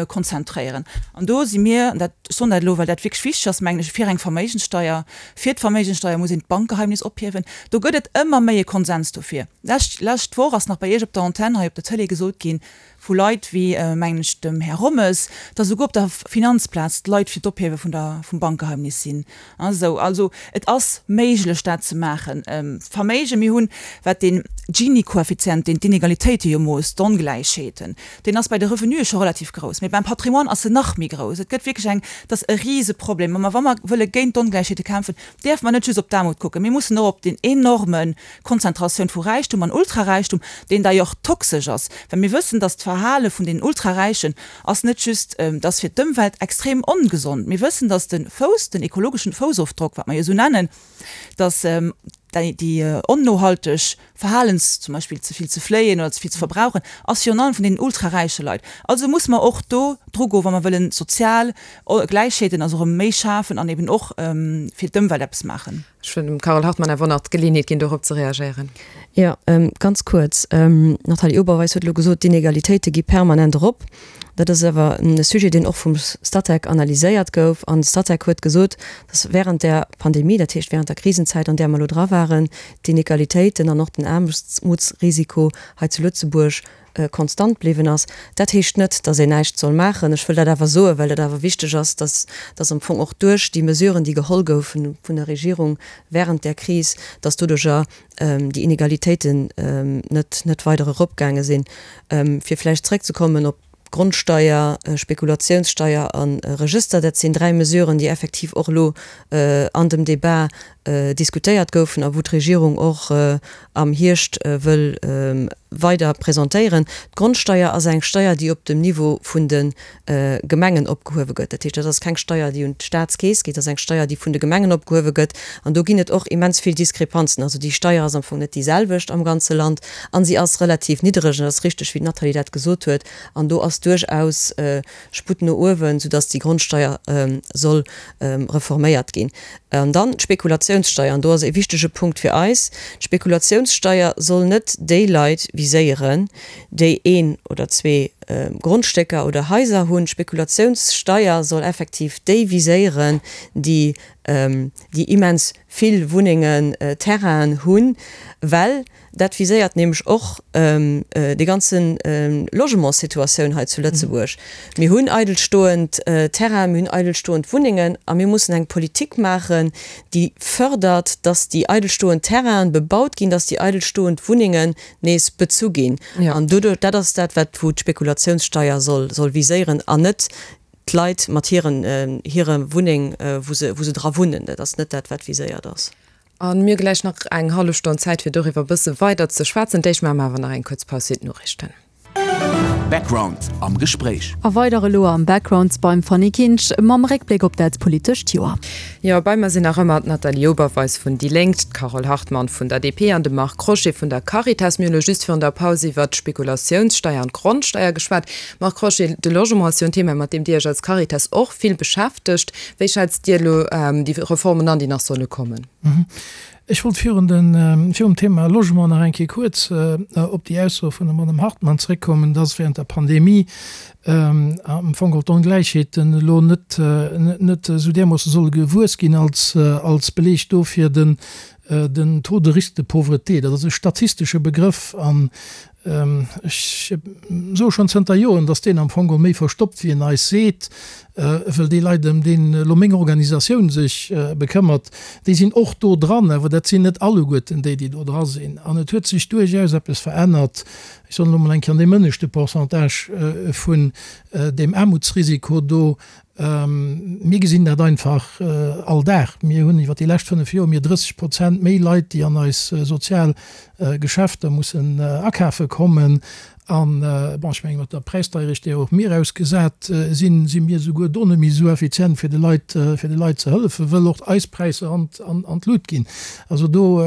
konzentréieren. An do si mir, an dat, ech soen dat elo, well dat wierklech wichteg ass, mengen ech, fir eng Verméigenssteuer. Fir d'Verméigenssteuer muss een d'Bankgeheimnis ophiewen. Do gëtt et ëmmer méi e Konsens dofir. Lescht, lescht Woch ass nach. nach bei Iech op der Antenn hei op der Tëlee gesot ginn, vu Leit wéi, mengen ech, dem Här Rommes, datt esouguer op der Finanzplaz d'Leit fir d'Ophiewe vun der, vum Bankgeheimnis sinn. Esou, also et ass méiglech dat ze maachen. Verméigen, mir hunn, wat deen Gini-Koeffizient, deen d'Inegalitéite jo moosst, d'Ongläichheeten, deen ass bei de Revenue scho relativ grouss, mee beim Patrimoine ass en nach méi grouss. Et gëtt wierklech eng, et ass e Riseproblem. A wa mer wëlle géint d'Ongläichheete kämpfen, däerfe mer net just op d'Aarmut kucken, mir mussen och op deen enorme Konzentratioun vu Räichtum an Ultraräichtum, deen d'ailleurs toxesch ass, well mir wëssen, dass d'Verhale vun den Ultraräichen ass net just, dass fir d'Ëmwelt extrem ongesond. Mir wëssen, dass de Fouss, den ekologeschen Foussofdrock, wat mer jo esou nennen, dass déi onnohalteg Verhalens, zum Beispill ze vill ze fléien oder ze vill ze verbrauchen, ass virun allem vun deenen ultraräiche Leit. Also muss mer och do dru goen, wa mer wëllen sozial Gläichheeten also erëm méi schafen an eben och fir d'Ëmwelt eppes maachen. Ech wëll dem Carole Hartmann awer nach d'Geleeënheet ginn, dorop ze reagéieren. Jo, ganz kuerz. D'Nathalie Oberweis huet elo gesot, d'Inegalitéite gi permanent erop. Dat ass awer e Sujet, deen och vum Statec analyséiert gouf. An de Statec huet gesot, datt während der Pandemie, dat heescht während der Krisenzäit, an där mer elo dra waren, d'Inegalitéiten an och den Aarmutsrisiko hei zu Lëtzebuerg konstant bliwwen ass. Dat heescht net, datt een näischt soll maachen. Ech wëll dat awer soen, well dat awer wichteg ass, datt, datt am Fong och duerch déi Mesuren, déi geholl goufen vun der Regierung während där Kris, datt doduerjer déi Inegalitéiten net, net weider eropgaange sinn. Fir vläicht zrëckzekommen op d'Grondsteier, Spekulatiounssteier a Regëster, dat sinn dräi Mesuren, déi effektiv och elo an dem Débat diskutéiert goufen a wou d'Regierung och am Hierscht wëll weider presentéieren. D'Grondsteier ass eng Steier, déi op dem Niveau vun de Gemengen opgehuewe gëtt. Dat heescht, dat ass keng Steier, déi un d'Staatskeess geet, dat ass eng Steier, déi vun de Gemengen opgehuewe gëtt. An do ginn et och immens vill Diskrepanzen. Also déi Steier ass am Fong net déi selwecht am ganze Land a si ass relativ niddereg. An et ass richteg, wéi d'Nathalie dat gesot huet. An do ass duerchaus Sputt no uewen, soudass déi Grondsteier soll reforméiert ginn. An dann d'Spekulationssteier, an do ass e wichtege Punkt fir eis, D'Spekulationssteier soll net déi Leit viséieren, déi een oder zwee Grondstécker oder Haiser hunn. D'Spekulationssteier soll effektiv déi viséieren, déi déi immens vill Wunnengen, Terrainen hunn, well Dat viséiert nämlech och déi ganze Logementssituatioun hei zu Lëtzebuerg. Mir hunn eidelstoend Terrainen, mir hunn eidelstoend Wunnengen a mir mussen eng Politik maachen, déi fërdert, dass déi eidelstoend Terrainen bebaut ginn, dass déi eidelstoend Wunnengen nees bezu ginn. An doduerch, dat ass dat, wat wou d'Spekulationssteier soll soll viséieren an net d'Leit mat hiren hire Wunneng, wou se wou se dra wunnen. Dat ass net dat, wat viséiert ass. A mir hu gläich nach eng hallef Stonn Zäit, fir doriwwer e bësse weider ze schwätzen. D'éischt maache mer awer nach eng kuerz Paus fir d'Noriichten. Background am Gespréich. A weider elo am Background beim Fanny Kinsch mam Réckbléck op dat politescht Joer. Jo, bei mer sinn nach ëmmer d'Nathalie Oberweis vun déi Lénk, d'Carole Hartmann vun der DP an de Marc Crochet vun der Caritas. Mir hunn elo just virun der Paus iwwert d'Spekulatiounssteier an d'Grondsteier geschwat. Marc Crochet, de Logement ass jo en Thema, mat deem Dir Iech als Caritas och vill beschäftegt. Wéi schätzt Dir elo déi Reformen an, déi nach solle kommen? Ech wollt virun den, virum Thema Logement nach eng Kéier kuerz op déi Ausso vun der Madame Hartmann zréckkommen, dass während der Pandemie am Fong geholl d'Ongläichheeten elo net, net esou därmoosse solle gewuess ginn als, als Beleg dofir den, den Taux de risque de pauvreté. Dat ass e statistesche Begrëff an Ech soe schonn zënter Joren, datt deen am Fong geholl méi verstoppt wéi en eis seet, wëll déi Leit, ëm déi elo meng Organisatioun sech bekëmmert, déi sinn och do dran, awer dat sinn net alleguerten déi, déi do dra sinn. An et huet sech duerchaus eppes verännert, ech soen elo mol eng Kéier, an deem ënneschte Pourcentage vun deem Aarmutsrisiko do. Mir gesinn dat einfach all Dag. Mir hunn iwwer déi lescht 5 Joer mir 30 Prozent méi Leit, déi an eis sozial Geschäfter mussen akafe kommen. An, bon, ech menge mat der Präisdeierecht, där och mir ausgesat sinn, si mir souguer do net méi esou effizient, fir de Leit, fir de Leit ze hëllefen, wëll och eis Präisser an, an d'Lut ginn. Also do,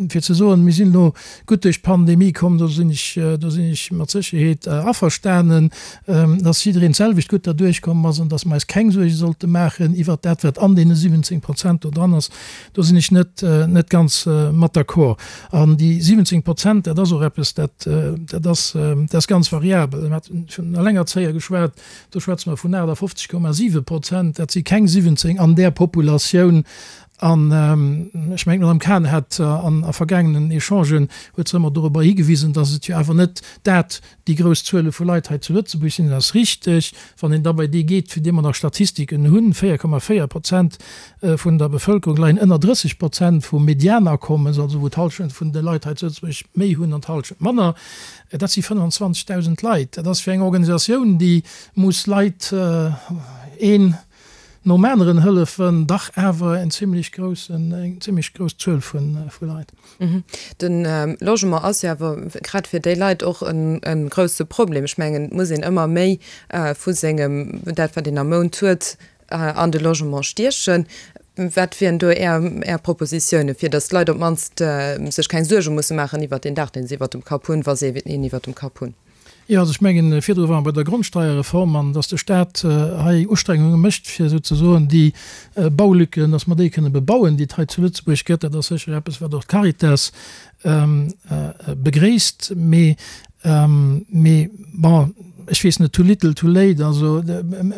fir ze soen, mir sinn elo gutt duerch d'Pandemie komm, do sinn ech, do sinn ech mat Sécherheet averstanen. dass jiddereen d'selwecht gutt derduerch komm ass an dass mer eis keng Suerge sollte maachen iwwert dat, wat an deene 17 Prozent do dran ass, do sinn ech net, net ganz mat d'accord. An déi 17 Prozent, dat ass och eppes, dat, dat ass, dat ass ganz variabel. Mir haten vun Allengerzéier geschwat, do schwätze mer vun 58,7 Prozent, dat si keng 17 an där Populatioun. An ech mengen, d'Madame Cahen hat an a vergaangenen Echangen huet se ëmmer dorobber higewisen, dass et jo awer net dat déi grouss Zuele vu Leit hei zu Lëtzebuerg sinn. Dat ass richteg. Wann een da bei déi geet, fir déi mer nach Statistiken hunn, 4,4 Prozent vun der Bevëlkerung leien ënner 30 Prozent vum Medianakommes, also wou d'Hallschent vun de Leit hei zu Lëtzebuerg méi hunn an d'Hallschent manner. Dat si 25.000 Leit. Dat ass fir eng Organisatioun, déi muss Leit een nom aneren hëllefen, dach awer en zimlech groussen, eng zimlech grouss Zuel vu Leit. De Logement ass jo awer grad fir déi Leit och e grousse Problem. Ech mengen, et muss een ëmmer méi vu sengem, dat wat een am Mount huet, an de Logement stiechen. Wat wieren do Är, Är Propositiounen, fir datt d'Leit op d'mannst sech keng Suerge musse maachen iwwert deen Daach, deen se iwwert dem Kapp hunn, wa se een iwwert dem Kapp hunn? Jo, also ech mengen, virdru ware mer bei der Grondsteierreform an dass de Stat hei Ustrengunge mécht, fir souzesoen déi Baulücken, dass mer déi kënne bebauen, déi et hei zu Lëtzebuerg gëtt. Dat ass sécher eppes, wat och d'Caritas begréisst. Mee, mee bon, ech weess net, too little, too late. Also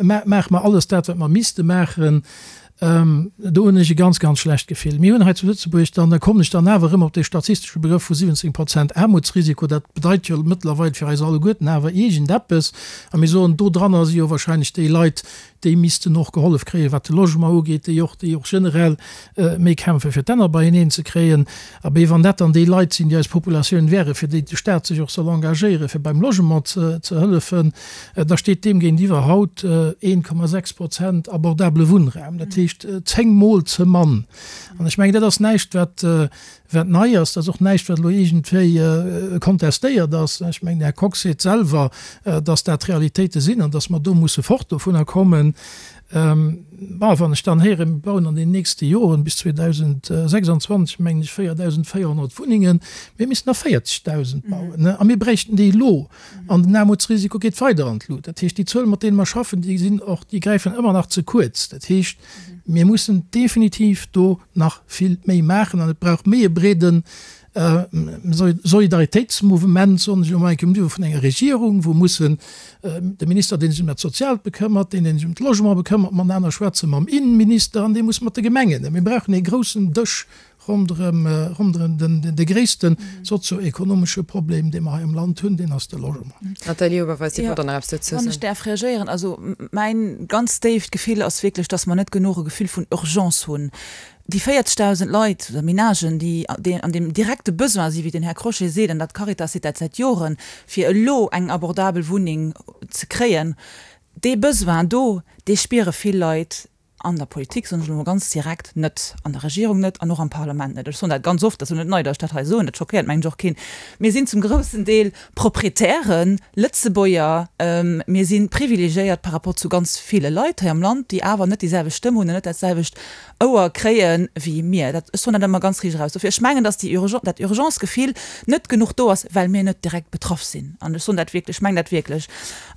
maache mer alles dat, wat mer misste maachen? Do hunn ech e ganz, ganz schlecht Gefill. Mir hunn hei zu Lëtzebuerg dann, da kommen ech dann awer erëm op dee statistesche Begrëff vu 17 Prozent Aarmutsrisiko, dat bedeit jo mëttlerweil fir eis alleguerten awer iergendeppes. A mir soen, dodranner si jo wahrscheinlech déi Leit, déi missten och gehollef kréien, wat de Logement ugeet, déi och, déi och generell méi kämpfen, fir d'Enner beieneen ze kréien. Abee, wann dat dann déi Leit sinn, déi eis Populatioun wären, fir déi de Stat sech och soll engagéieren, fir beim Logement ze hëllefen, Da steet deem géintiwwer haut 1,6 Prozent abordabele Wunnraum, dat heescht zéngmol ze mann. An ech mengen, dat ass näischt, wat, wat nei ass. Dat ass och näischt, wat elo iergendwéi kontestéiert ass. Ech mengen, den Här Kox seet selwer, dass dat d'Realitéite sinn an dass mer do musse fort dovunner kommen. Bon, wann ech dann héieren, mir bauen an den nächste Joren bis 2026, mengen ech, 4.400 Wunnengen, mir missten der 40.000 bauen, a mir bräichten déi elo. An den Aarmutsrisiko geet weider an d'Lut. Dat heescht, déi Zuelen, mat deene mer schaffen, déi sinn och, déi gräifen ëmmer nach ze kuerz. Dat heescht, mir mussen definitiv do nach vill méi maachen an et brauch méi e breede Solidaritéitsmouvement, soen ech elo mol eng Kéier, um Niveau vun enger Regierung, wou mussen de Minister, dee sech ëm dat Soziaalt bekëmmert, deen, dee sech ëm d'Logement bekëmmert, matenaner schwätzen, mam Innenminister an dee muss mat de Gemengen. Mir brauchen ee groussen Dësch Ronderëm, ronderëm den, de gréisste sozio-ekonomesche Problem, dee mer hei am Land hunn, deen ass de Logement. Nathalie Oberweis, Dir wollt och nach eppes dozou soen. Wann ech däerf reagéieren, also mäin ganz déift Gefill ass wierklech, dass mer net genuch e Gefill vun Urgence hunn. Déi 40.000 Leit oder Menagen, déi, déi an deem direkte Besoin sinn, wéi den Här Crochet seet, an dat d'Caritas seet dat säit Joren, fir elo eng abordabel Wunneng ze kréien, dee Besoin do, dee spiere vill Leit An der Politik, soen ech elo mol ganz direkt, net, an der Regierung net an och am Parlament net. Ech soen dat ganz oft, dat ass elo net nei, datt ech dat hei soen, dat schockéiert mengen ech och keen. Mir sinn zum groussen Deel Proprietären, Lëtzebuerger, mir si privilegiéiert par rapport zu ganz ville Leit hei am Land, déi awer net déi selwecht Stëmm hunn an net dat selwecht Ouer kréie wéi mir. Dat, ech soen dat ëmmer ganz riicht eraus. Dofir, ech mengen, datt déi Urgence, dat Urgence-Gefill net genuch do ass, well mir net direkt betraff sinn. An ech soen dat wierklech, ech mengen dat wierklech.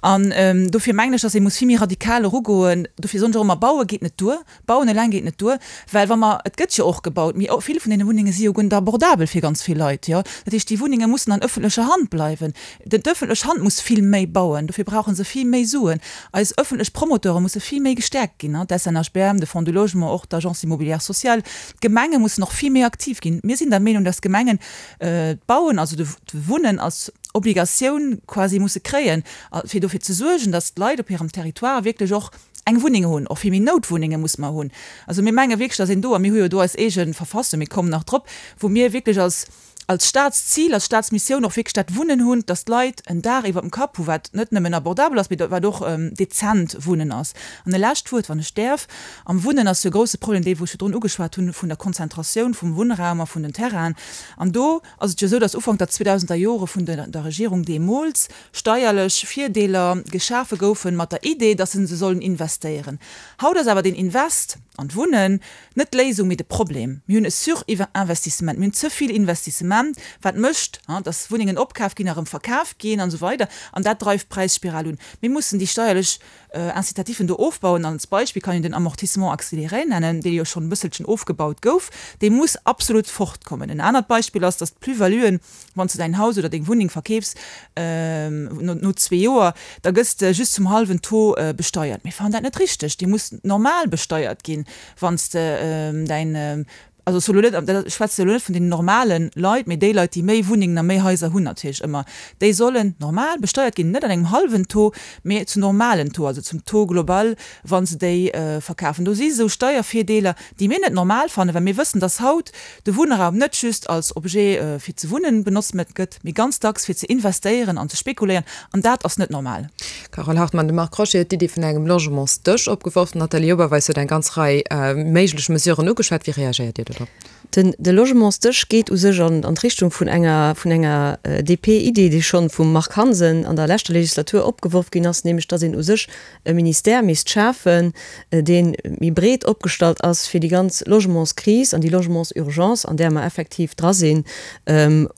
An dofir mengen ech, dass ee muss vill méi radikal erugoen. Dofir soen ech och ëmmer, Baue geet net duer, bauen eleng geet net duer, well wa mer, et gëtt jo och gebaut, mee vill vun deene Wunnenge si jo guer net abordabel fir ganz vill Leit, jo. Dat heescht, déi Wunnenge mussen an ëffentlecher Hand bleiwen. D'ëffentlech Hand muss vill méi bauen, dofir brauche se vill méi Suen. Eis ëffentlech Promoteure musse vill méi gestäerkt ginn, d'SNHBM, de Fonds du Logement, och d'Agence immobilière sociale. D'Gemenge mussen och vill méi aktiv ginn. Mir sinn der Meenung, dass d'Gemengen d'Bauen, also de Wunnen als Obligatioun quasi musse kréien, fir dofir ze suergen, datt d'Leit op hirem Territoire wierklech och eng Wunneng hunn. Och vill méi Noutwunnenge musse mer hunn. Also mir menge wierklech, datt een do, a mir hu jo do eis eege Verfassung, mir kommen nach drop, wou mir wierklech als als Staatszil, als Staatsmissioun och wierklech dat Wunnen hunn, datt d'Leit en Daach iwwer dem Kapp hu wat net nëmmen abordabel ass, mee wat och dezent Wunnen ass. An e lescht Wuert, wann ech däerf, Am Wunnen ass jo e grouse Problem dee wou ech virdrun ugeschwat hunn, vun der Konzentratioun vum Wunnraum a vun den Terrainen. An do ass et jo esou, datt Ufank der 2000er Jore vun der Regierung deemools steierlech Virdeeler geschafe goufen, mat der Idee, datt se se sollen investéieren. Haut ass awer deen Invest an d'Wunnen net d'Léisung, mee de Problem. Mir hunn e Surinvestissement, mir hunn ze vill Investissement. Inkreement, wat mécht, dass Wunnengen opkaf ginn a rëm verkaf ginn an esou weider. An dat dreift d'Präisspiral un. Mir mussen déi steierlech Incitatifen do ofbauen. An als Beispill kann een den Amortissement accéléré nennen, dee jo schonn e bësselchen ofgebaut gouf. Dee muss absolut fortkommen. En anert Beispill ass, dass d'Plus-valuen, wann s de däin Haus oder deng Wunneng verkeefs no zwee Joer, da gëss de just zum hallwen Taux besteiert. Mir fannen dat net richteg. Déi muss normal besteiert ginn, wann s de däin Also ech soe lo net, ech schwätze elo net vun den normale Leit, mee déi Leit, déi méi Wunnengen a méi Haiser hunn natierlech ëmmer, déi sollen normal besteiert ginn, net an engem hallwen Taux, mee zum normalen Taux, also zum Taux global, wa se déi verkafen. Do si sou Steiervirdeeler, déi mir net normal fannen, well mir wëssen, dass haut de Wunnraum net just als Objet fir ze wunnen benotzt gëtt, mee ganz dacks fir ze investéieren an ze spekuléieren, an dat ass net normal. Carole Hartmann, De Marc Crochet huet d'Iddi vun engem Logementsdësch opgeworf. D'Nathalie Oberweis huet eng ganz Rei méiglech Mesuren ugeschwat. Wéi reagéiert Dir dodrop? Den de Logementsdësch geet u sech an an d'Richtung vun enger vun enger DP-Idee, déi schonn vum Marc Hansen an der leschter Legislatur opgeworf ginn ass, nämlech datt een u sech e Ministère misst schafen, dee méi breet opgestallt ass, fir déi ganz Logementskris an déi Logementsurgence, an där mer effektiv dra sinn,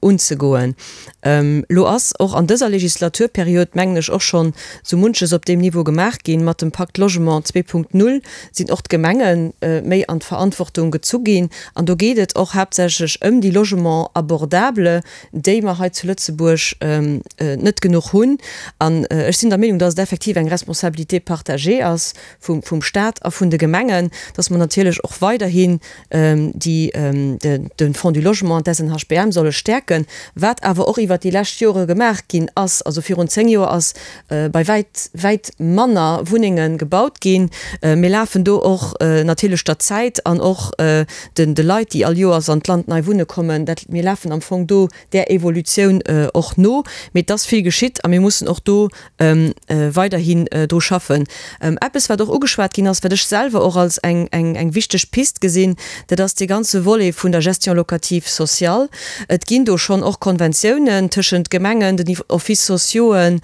unzegoen. Elo ass och an dëser Legislaturperiod, mengen ech, och schonn sou munches op deem Niveau gemaach ginn. Mat dem Pacte Logement 2.0 sinn och d'Gemenge méi an d'Verantwortung gezu ginn. An do geet et och haaptsächlech ëm déi Logements abordables, déi mer hei zu Lëtzebuerg net genuch hunn. An ech sinn der Meenung, dass et effektiv eng Responsabilité partagée ass vum Stat a vun de Gemengen, dass mer natierlech och weiderhin déi de Fonds du Logement an d'SNHBM solle stäerken, wat awer och iwwert déi lescht Jore gemaach ginn ass. Also virun 10 Joer ass bei wäit, wäit manner Wunnenge gebaut ginn. Mir lafen do och natierlech der Zäit an och de Leit, déi all Joers an d'Land nei wunne kommen, dat, mir lafen am Fong do där Evolutioun och no. Mee et ass vill geschitt a mir mussen och do weiderhin dru schaffen. Eppes, wat och ugeschwat ginn ass, wat ech selwer och als eng, eng, eng wichteg Pist gesinn, dat ass dee ganze Volet vun der Gestion locative sociale. Et ginn do schonn och Konventiounen tëschent Gemengen, den Offices sociauxen,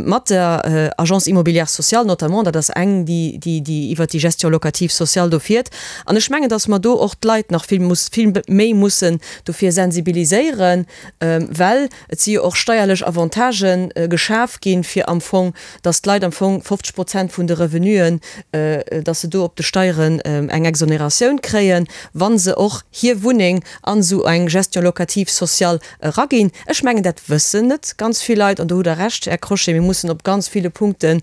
mat der Agence immobilière sociale notamment, dat ass eng, déi, déi, déi iwwert déi Gestion locative sociale do fiert. An ech mengen, dass mer do och d'Leit nach vill muss, vill méi mussen dofir sensibiliséieren, well Et si jo och steierlech Avantagë geschaf ginn, fir am Fong, dass d'Leit am Fong 50 Prozent vun de Revenuen, dass se do op de Steieren eng Exonératioun kréien, wa se och hir Wunneng an esou eng Gestion locative sociale eraginn. Ech mengen, dat wëssen net ganz vill Leit. An do hutt Der Recht, Här Crochet, mir mussen op ganz ville Punkte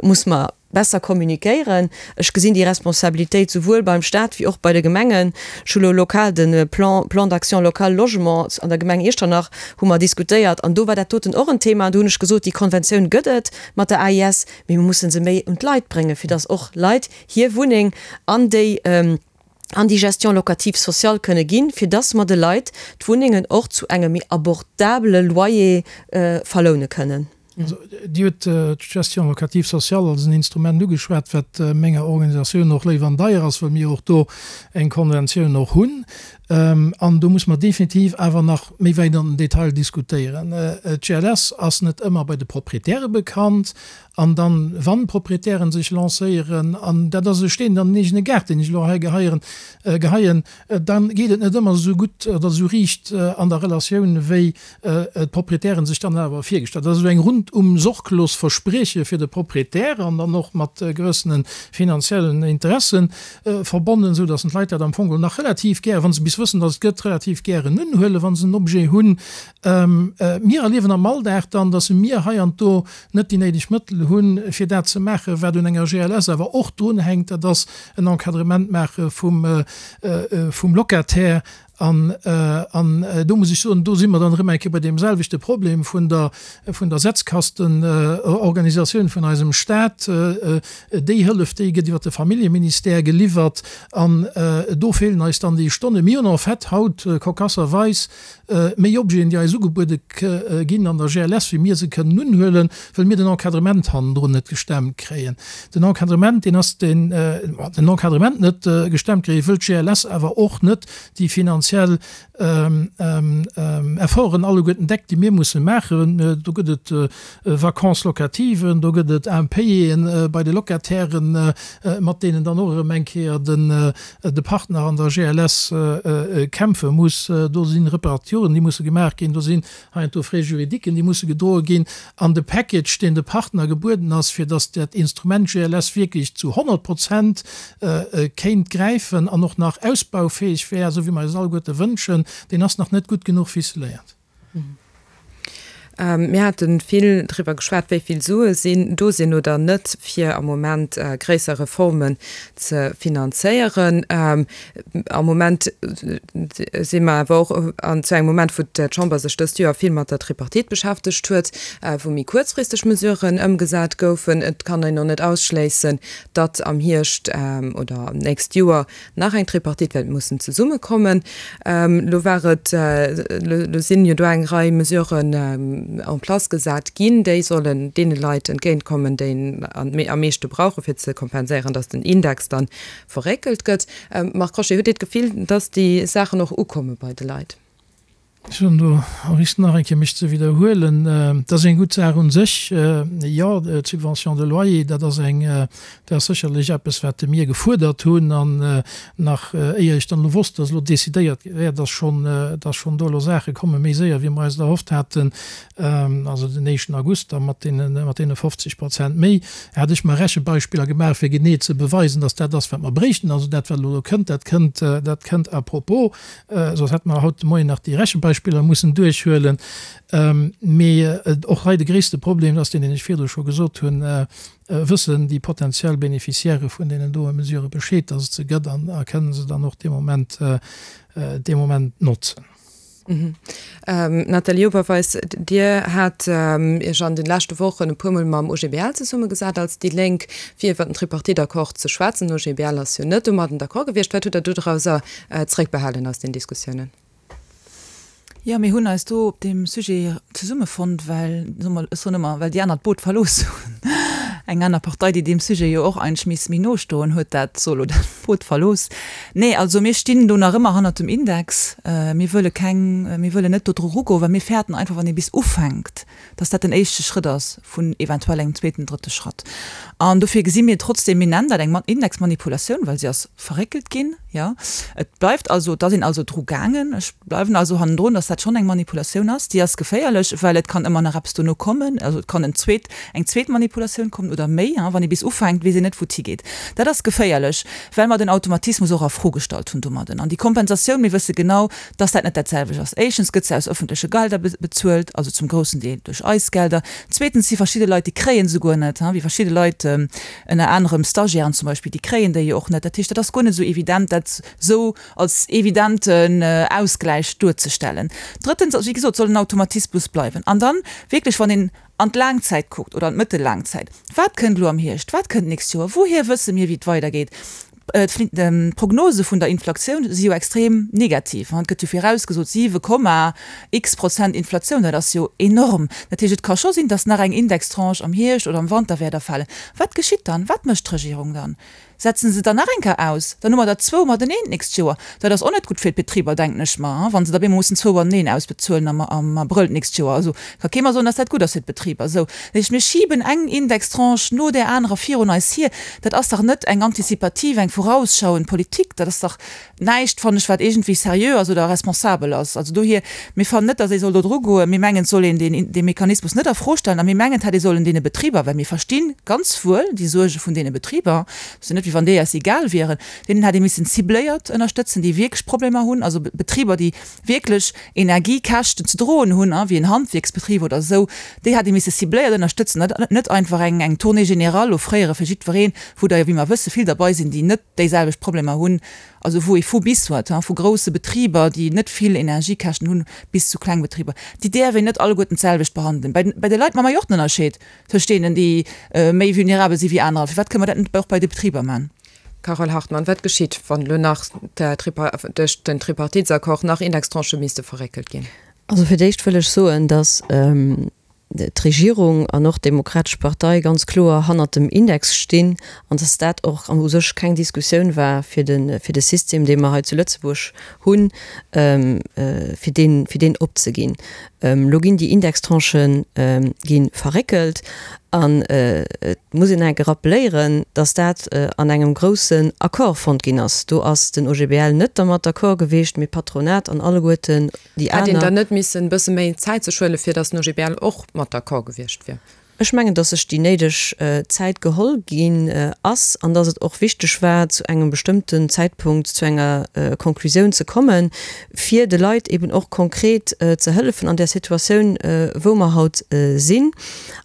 muss mer, besser communiquéieren. Ech gesinn déi Responsabilitéit souwuel beim Stat wéi och bei de Gemengen. Ech hu lo lokal de Plan, Plan d'action local logement an der Gemeng Iechternach hu mer diskutéiert an do war dat doten och en Thema an do hunn ech gesot, déi Konventioun gëtt et mat der AIS, mee mir musse se méi un d'Leit bréngen, fir datt och Leit hir Wunneng an déi, an déi Gestion locative sociale kënne ginn, fir datt mer de Leit d'Wunnengen och zu engem méi abordabele Loyer verloune kënnen. Also, Dir hutt d'Gestion locative sociale als en Instrument ugeschwat, wat menger Organisatioun och léif an deier ass, well mir och do eng Konventioun och hunn. An do muss mer definitiv awer nach méi wäit an den Detail diskutéieren. D'GLS ass net ëmmer bei de Proprietäre bekannt. An dann, wann d'Proprietären sech lancéieren, an dat ass e Steen an den eegene Gaart, deen ech elo hei geheieren, geheien, da geet et net ëmmer esou gutt oder esou riicht an der Relatioun, wéi d'Proprietären sech dann awer virgestallt. Dat ass esou eng rundum sorglos Versprieche fir de Proprietär an dann och mat gewëssene finanziellen Interessen verbonnen, esou datt d'Leit dat am Fong nach relativ gär, wa se bis wëssen, datt et gëtt, relativ gären unhuelen, wa se en Objet hunn. Mir erliewen am Alldag dann, datt mir hei an do net déi néideg Mëttel hunn, fir dat ze maachen, wat un enger GLS awer och drunhänkt, dat ass en Encadrement maache vum Locataire. An do muss ech soen, do si mer dann erëm eng Kéier bei deem selwechte Problem vun der, vun der Setzkastenorganisatioun vun eisem Stat. Déi Hëllef, déi gëtt iwwert de Familljeministère geliwwert an do feelen eis dann déi Stonnen. Mir hunn en fait haut cocasserweis méi Objeten, déi eis ugebuede ginn an der GLS, wéi mir se kënnen unhuelen, wëll mir den Encadrement hannendrun net gestemmt kréien. Den Encadrement, deen ass den, den Encadrement net gestemmt kréien, wëll d'GLS awer och net déi finanziell. finanziell Efforten alleguerten deckt, déi mir musse maachen. Do gëtt et Vacances locatives, do gëtt et Impayéen bei de Locatairen, mat deenen dann och erëm eng Kéier de Partner an der GLS kämpfe muss. Do si Reparaturen, déi musse gemaach ginn. Do sinn heiansdo Frais juridiquen, déi musse gedroe ginn. An de Package, deen de Partner gebueden ass, fir datt dat Instrument GLS wierklech zu 100 Prozent kéint gräifen an och nach ausbaufäeg wär, esou wéi mer eis alleguerte wënschen, deen ass nach net gutt genuch ficeléiert. Mir hate vill driwwer geschwat, wéi vill Sue sinn do sinn oder net, fir am Moment gréisser Reformen ze finanzéieren. Am Moment si mer awer och an zu engem Moment, wou d'Chamber sech dëst Joer vill mat der Tripartite beschäftegt huet, wou méi kuerzfristeg Mesuren ëmgesat goufen. Et kann een och net ausschléissen, datt am Hierscht oder nächst Joer nach eng Tripartite wäert mussen zesummekommen. Elo war et, elo sinn jo do eng Rei Mesuren en place gesat ginn, déi sollen deene Leit entgéintkommen, déi en am meeschte brauchen, fir ze kompenséieren, datt den Index dann verréckelt gëtt. Marc Crochet, hutt Dir d'Gefill, datt déi Saachen och ukomme bei de Leit? Ech hunn do au risque nach eng Kéier mech ze widderhuelen, dat ass eng gutt Saach un sech, jo, d'Subvention de loyer, dat ass eng, dat ass sécherlech eppes, wat mir gefuerdert hunn an nach éier ech dann elo wosst, datt elo decidéiert wär, datt schonn, datt schonn do elo Saache komme méi séier wéi mer eis et erhofft haten, also den éischten August da mat deene, mat deene 50 Prozent méi, hat ech mer Rechebeispiller gemaach, fir genee ze beweisen, datt dat ass, wat mer bréichten. Also dat, wat elo do kënnt, dat kënnt, dat kënnt à propos. Soss hätte mer haut de Moien nach déi Rechenbeispiller mussen duerchhuelen. Mee och hei de gréisste Problem ass deen, deen ech virdru scho gesot hunn, Wëssen déi potentiell Bénéficiairë vun deenen doe Mesurë Bescheed, dass et se gëtt an a kënnen se dann och dee Moment, dee Moment notzen? Nathalie Oberweis, Dir hat Iech an de leschte Wochen e puermol mam OGBL zesummegesat als déi Lénk, fir iwwer den Tripartite-Accord ze schwätzen. Den OGBL ass jo net domadden d'accord gewiescht. Wat hutt Der dodrauser Zréckbehalen aus den Diskussiounen? Jo, mir hunn eis do op deem Sujet zesummefonnt, well, soe mer, ech soen ëmmer, well déi aner d'Boot verlooss hunn. Eng aner Partei, déi deem Sujet jo och eigentlech misst méi no stoen, huet dat solo dat Boot verlooss. Nee, also mir stinn do nach ëmmer hannert dem Index. Mir wëlle keng, mir wëllen net do dru rugoen, well mir fäerten einfach, wann ee bis ufänkt, dass dat den éischte Schrëtt ass vun eventuell engem zweeten, drëtte Schratt. An dofir gesi mir trotzdem, mir nennen dat eng Indexmanipulatioun, well se ass verréckelt ginn, jo. Et bleift also, et ass een also dru gaangen. Ech bleiwen also hannendrun, dass dat schonn eng Manipulatioun ass. Déi ass geféierlech, well et kann ëmmer nach eppes dono kommen. Also et kann en zweet, eng zweet Manipulatioun kommen oder méi. Wann ee bis ufänkt, weess een net, wou et higeet. Dat ass geféierlech, well mer den Automatismus och a Fro gestallt hunn domadden. An déi Kompensatioun, mir wësse genau, dass dat net dat selwecht ass. Éischtens gëtt se aus öffentleche Gelder bezuelt, also zum groussen Deel duerch eis Gelder. Zweetens si verschidde Leit, déi kréien se guer net, wéi verschidde Leit, ënner anerem Stagiairen zum Beispill, déi kréien déi jo och net. Dat heescht, dat ass guer net esou evident, dat esou als evidenten Ausgläich duerzestellen. Drëttens, also wéi gesot, soll den Automatismus bleiwen. An dann wierklech, wann een an d'Laangzäit kuckt oder an d'mëttellaangzäit, Wat kënnt elo am Hierscht, wat kënnt d'nächst Joer, wouhier wësse mir, wéi et weidergeet? D'Prognose vun der Inflatioun si jo extrem negativ. Et gëtt jo virausgesot 7 Komma x Prozent Inflatioun. Dat ass jo enorm. Dat heescht, et ka scho sinn, datt nach eng Indextranche am Hierscht oder am Wanter wäert erfalen. Wat geschitt dann? Wat mécht d'Regierung dann? Setzen se dann nach eng Kéier aus? Dann hu mer der zwou mateneen d'nächst Joer. Dat ass och net gutt fir d'Betriber, denken ech mer, wa se da bemol mussen zwou mateneen ausbezuelen am Abrëll d'nächst Joer. Also ka kee mer soen, datt dat gutt ass fir d'Betriber. Esou, dat heescht, mir schiben eng Indextranche no där anerer virun eis hier. Dat ass dach net eng antizipativ, eng vorausschauend Politik. Dat ass dach näischt, fannen ech, wat iergendwéi seriö ass oder responsabel ass. Also dohier, mir fannen net, datt ee soll do dru goen. Mir mengen, et soll een deen, dee Mechanismus net a Fro stellen a mir mengen, et hätt ee sollen deene Betriber, well mir versti ganz wuel déi Suerge vun deene Betriber, et ass jo net, wéi wann déi eis egal wieren, deenen hätt ee missen cibléiert ënnerstëtzen, déi wierklech Problemer hunn, also Betriber, déi wierklech Energiekäschten ze droen hunn, wéi en Handwierksbetrib oder esou, déi hätt ee misse cibléiert ënnerstëtzen, net net einfach eng eng Tournée générale offréiere fir jiddwereen, wou der jo, wéi mer wësse, vill derbei sinn, déi net déiselwecht Problemer hunn, also wou ee vu bis huet, vu grousse Betriber, déi net vill Energiekäschten hunn, bis zu kleng Betriber. Déi däerf een net alleguerten d'selwecht behandelen. Bei bei de Leit maache mer jo och den Ënnerscheed tëscht deenen, déi méi vulnerabel si wéi anerer. Firwat kënne mer dat net och bei de Betriber maachen? Carole Hartmann, Wat geschitt, wann elo nach duerch den Tripartitesaccord nach Indextranchë misste verréckelt ginn? Also fir d'éischt wëll ech soen, datt. d'Regierung an och d'Demokratesch Partei ganz kloer hannert dem Index stinn an dass dat och u sech keng Diskussioun war fir de fir de System, dee mer hei zu Lëtzebuerg hunn, fir deen fir deen opzeginn. Elo ginn déi Indextranchë gi verréckelt an et muss een enke rappeléieren, dass dat an engem groussen Accord fonnt ginn ass. Do ass den OGBL net dermat d'accord gewiescht, mee d'Patronat an alleguerten déi aner. Hätt een dann net missen e bësse méi Zäit sech huelen, fir dass den OGBL och mat d'accord gewiescht wier? Ech mengen, dass sech déi néideg Zäit geholl ginn ass an dass et och wichteg war, zu engem bestëmmten Zäitpunkt zu enger Konklusioun ze kommen, fir de Leit eben och konkret ze hëllefen an där Situatioun, wou mer haut sinn.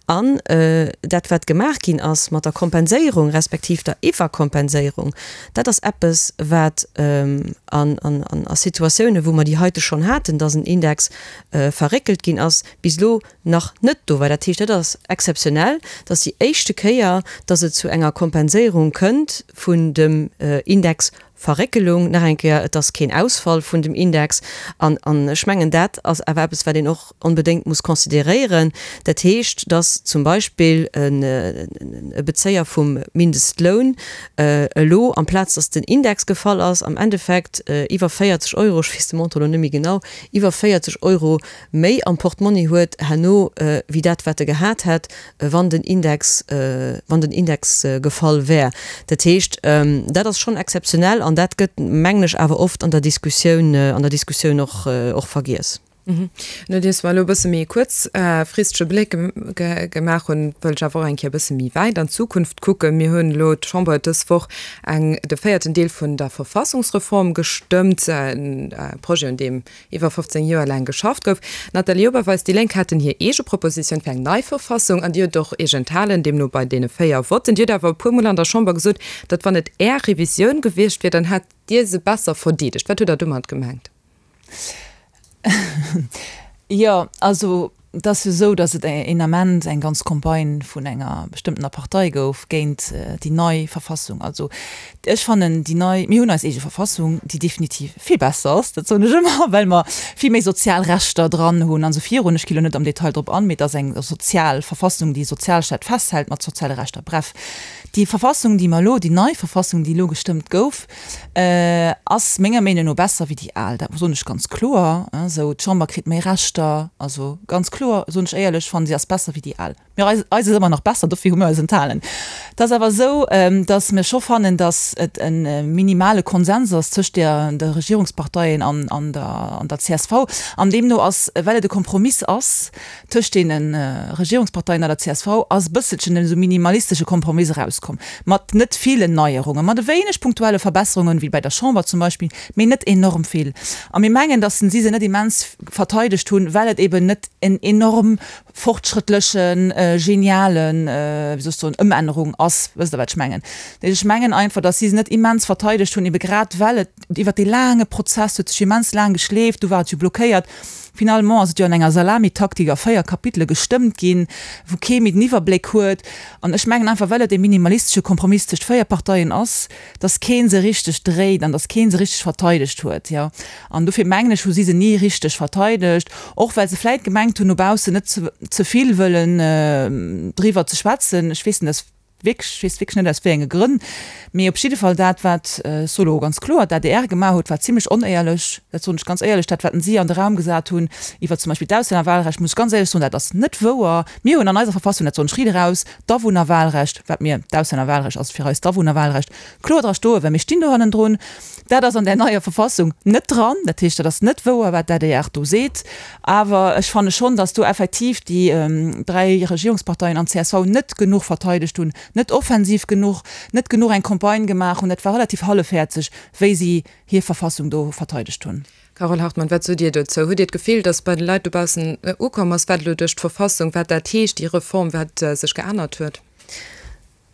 An dat, wat gemaach ginn ass mat der Kompenséierung respektiv der Iwwerkompenséierung, dat ass eppes, wat a Situatiounen, wou mer déi heite schonn haten, dass en Index verréckelt ginn ass, bis elo nach net do war. Dat heescht, dat ass exzeptionell, dat ass déi éischte Kéier, dass et zu enger Kompenséierung kënnt vun dem Indexverréckelung. Nach eng Kéier, et ass keen Ausfall vun dem Index. An ech mengen, dat ass awer eppes, wat een och onbedéngt muss consideréieren. Dat heescht, dass zum Beispill e Bezéier vum Mindestloun elo, amplaz dass den Index gefall ass, am Endeffekt iwwer 40 Euro, ech weess de Montant elo net méi genau, iwwer 40 Euro méi am Portmonni huet herno wéi dat wat e gehat hätt, wann den Index, wann den Index gefall wär. Dat heescht, dat ass schonn exzeptionell an dat gëtt, mengen ech, awer oft an der Diskussioun, an der Diskussioun och, och vergiess. Nodeems mer elo e bësse méi e kuerzfristege Bléck gemaach hunn, wëll ech awer och eng Kéier e bësse méi wäit an d'Zukunft kucken. Mir hunn elo, d'Chamber huet dës Woch eng, de véierten Deel vun der Verfassungsreform gestëmmt, e Projet, un deem iwwer 15 Joer laang geschafft gouf. D'Nathalie Oberweis, déi Lénk haten hir eege Propositioun fir eng nei Verfassung an Dir hutt och Iech enthalen, deemno bei deene 4 Votten. Dir hutt awer e puer Mol an der Chamber gesot, datt wann et Är Revisioun gewiescht wier, dann hätt Dir se besser verdeedegt. Wat hutt Der domat gemengt? Jo, also Et ass jo esou, datt et een Ament eng ganz Campagne vun enger bestëmmtener Partei gouf géint déi nei Verfassung. Also ech fannen déi nei, mir hunn eis eege Verfassung, déi definitiv vill besser ass, dat soen ech ëmmer, well mer vill méi sozial Rechter dran hunn an esou virun. Ech gi lo net am Detail drop an, mee et ass eng sozial Verfassung, déi e Sozialstaat festhält mat soziale Rechter. Bref, déi Verfassung, déi mer elo, déi nei Verfassung, déi elo gestëmmt gouf, Ass menger Meenung no besser wéi déi al, dat soen ech ganz kloer esou. D'Chamber kritt méi Rechter, also ganz kloer soen ech éierlech, fannen si ass besser wéi déi al. Mir eis eis ass ëmmer nach besser, dofir hu mir eis enthalen. Et ass awer esou, datt mir scho fannen, datt et e minimale Konsens ass tëscht der de Regierungsparteien an an der an der csv an deemno ass, well et e Kompromiss ass, Tëscht deene Regierungsparteien a der csv ass e bësselchen esou minimalistesche Kompromiss erauskomm, mat net villen Neierungen, mat e wéineg punktuelle Verbesserungen, wéi bäi der Chamber zum Beispill, mee net enorm vill. A mir mengen, datt si se net immens verteidegt hunn, well et eben net en enorm fortschrëttlechen, genialen, wéi soll ech soen, Ëmännerung ass. Wësst Der, wat ech mengen? Ech mengen einfach, datt si se net immens verteidegt hunn, ebe grad well et iwwert dee laange Prozess huet sech immens laang geschleeft, du war et jo blockéiert. Finalement ass et jo an enger Salamitaktik a 4 Kapitele gestëmmt ginn, wou kee méi den Iwwerbléck huet. An ech mengen einfach, well et e minimalistesche Kompromiss tëscht 4 Parteien ass, dass kee se richteg dréit an dass kee se richteg verteidegt huet. Jo, an dofir mengen ech, hu si se ni richteg verteidegt, och well se vläit gemengt hunn, no baussen net ze vill wëllen driwwer ze schwätzen. Ech weess net, dass. Wierklech, ech weess wierklech net aus wéi enge Grënn, mee op jidde Fall dat wat, ech soe lo ganz kloer, d'ADR gemaach huet, war zimlech onéierlech, dat soen ech ganz éierlech. Dat wat si an de Raum gesat hunn iwwer zum Beispill d'Auslännerwahlrecht, muss ech ganz éierlech soen, dat ass net wouer. Mir hunn an eiser Verfassung, dat soen ech riit eraus, d'Awunnerwahlrecht, wat mir, d'Auslännerwahlrecht ass fir eis d'Awunnerwahlrecht, kloer dra stoen, well mir stinn do hannendrun. Dat ass an där neier Verfassung net dran. Dat heescht, dat ass net wouer, wat d'ADR do seet. Awer ech fanne schonn, datt do effektiv déi dräi Regierungsparteien an d'CSV net genuch verteidegt hunn, net offensiv genuch, net genuch eng Campagne gemaach hunn. Dat war relativ hallefhäerzeg, wéi si hir Verfassung do verteidegt hunn. Carole Hartmann, wat sot Dir dozou? Hutt Dir d'Gefill, datt bei de Leit dobaussen ukomm ass, wat elo duerch d'Verfassung, wat dat heescht, déi Reform, wat sech geännert huet?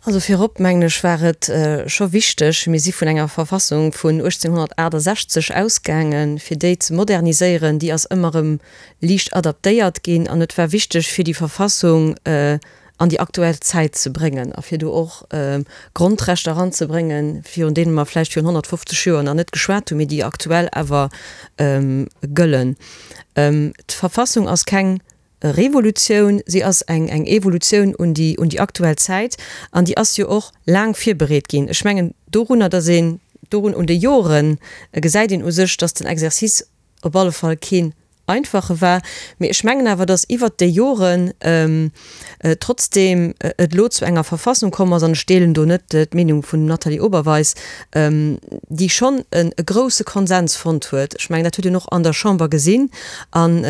Also virop, mengen ech, war et scho wichteg, mir si vun enger Verfassung vun 1868 ausgaangen, fir déi ze moderniséieren. Déi ass ëmmer erëm liicht adaptéiert ginn an et war wichteg, fir déi Verfassung an déi aktuell Zäit ze bréngen a fir do och Grondrechter eranzebréngen, virun deene mer vläicht virun 150 Joer nach net geschwat hunn, mee déi aktuell awer gëllen. D'Verfassung ass keng. Revolutioun, si ass eng eng Evolutioun un déi un déi aktuell Zäit an déi ass jo och laang virbereet ginn. Ech mengen dorunner, datt een dorun un de Joren gesäit een u sech, datt den Exercice op alle Fall keen einfache war. Mee ech mengen awer, datt iwwert déi Joren trotzdeem et elo zu enger Verfassung komm ass, an ech deelen do net d'Meenung vun dem Nathalie Oberweis, déi schonn e grouse Konsens fonnt huet. Ech mengen, dat huet een och an der Chamber gesinn an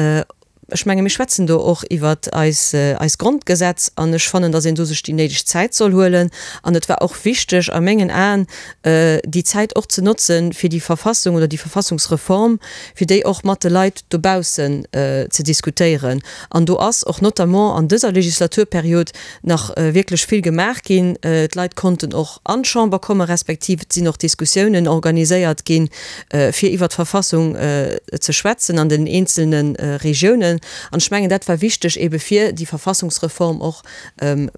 Ech menge mir schwätzen do och iwwer eis eist Grondgesetz an ech fannen, datt een do sech déi néideg Zäit soll huelen. An et war och wichteg a mengen Aen, déi Zäit och ze notzen, fir déi Verfassung oder déi Verfassungsreform, fir déi och mat de Leit dobaussen ze diskutéieren. An do ass och notamment an dëser Legislaturperiod nach wierklech vill gemaach ginn. D'Leit konnten och an d'Chamber komme respektiv et sinn och Diskussiounen organiséiert ginn, fir iwwert d'Verfassung ze schwätzen an den eenzelne Regiounen. An ech mengen, dat war wichteg ebe fir déi Verfassungsreform och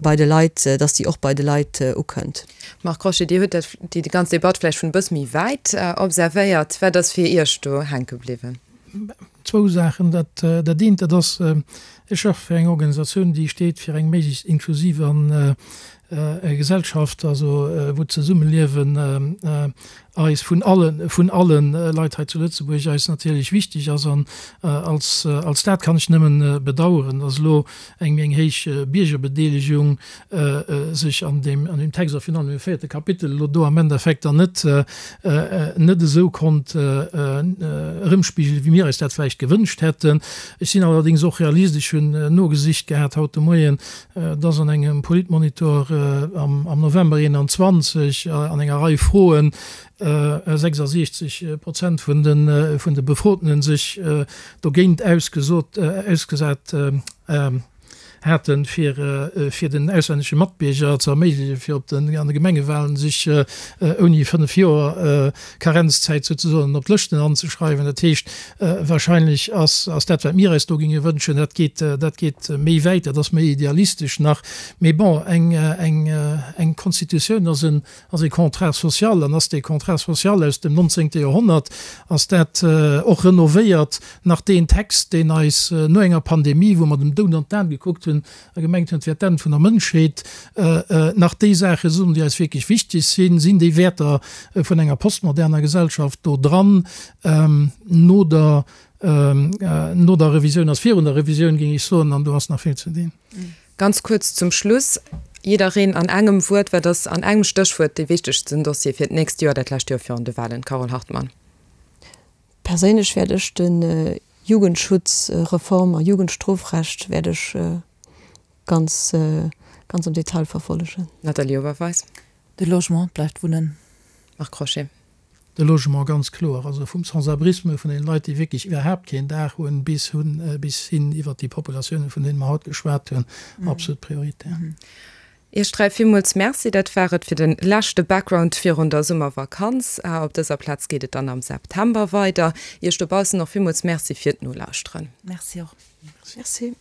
bei de Leit, dass déi och bei de Leit ukënnt. Marc Crochet, Dir hutt dat, déi ganz Debatt vläicht vun e bësse méi wäit observéiert. Wat ass fir Iech do hänke bliwwen? Zwou Saachen. Dat dat eent, dat ass, ech schaffe fir eng Organisatioun, déi steet fir eng méiglechst inklusiv an Gesellschaft, also wou d'Zesummeliewen eis vun alle vun alle Leit hei zu Lëtzebuerg eis natierlech wichteg ass. An als als dat kann ech nëmmen bedauern, datt elo eng méi eng héich Biergerbedeelegung sech an deem an deem Text a virun allem im véierte Kapitel elo do am Endeffekt dann net net esou konnt erëmspigelen, wéi mir eis dat vläicht gewënscht hätten. Ech sinn allerdéngs och Realist. Ech hunn nogesicht gehat haut de Moien, dass an engem Politmonitor am am November 21 an enger Rei Froen 66 Prozent vun de vun de Befrotenen sech dogéint ausgesot ausgesat haten, fir fir den auslännesche Matbierger ze erméiglechen, fir op den an de Gemengewahlen sech ouni 5 Joer Karenzzäit souzesoen op d'Lëschten anzeschreiwen. Dat heescht, wahrscheinlech ass ass dat, wat mir eis do géinge wënschen, dat geet dat geet méi wäit, dat ass méi idealistesch nach. Mee bon, eng eng eng Constitutioun ass en ass e Contrat social an ass dee Contrat social aus dem 19. Joerhonnert, ass dat och renovéiert nach deen Text, deen eis no enger Pandemie, wou mer dem Doud an d'Aen gekuckt hunn a gemengt hunn, et wär d'Enn vun der Mënschheet, nach déi Saache soen, déi eis wierklech wichteg sinn, sinn déi Wäerter vun enger postmoderner Gesellschaft do dran, no der, no der Revisioun ass virun der Revisioun, géing ech soen, an do ass nach vill ze dinn. Ganz kuerz zum Schluss, jiddereen an engem Wuert, Wat ass an engem Stéchwuert dee wichtegsten Dossier fir d'nächst Joer, dat lescht Joer virun de Wahlen? Carole Hartmann. Perséinlech wäert ech de Jugendschutzreform a Jugendstrofrecht wäert ech ganz, ganz am Detail verfollegen. Nathalie Oberweis. De Logement bleift Wunnen. Marc Crochet. De Logement, ganz kloer. Also vum Sans-abrisme, vun deene Leit, déi wierklech iwwerhaapt keen Daach hunn, bis hunn, bis hin iwwert déi Populatiounen, vun deene mer haut geschwat hunn, absolut prioritär. Iech 3 villmools Merci. Dat war et fir de leschte Background virun der Summervakanz. Op dëser Plaz geet et dann am September weider. Iech dobaussen och villmools Merci fir d'Nolauschteren. Merci och. Merci.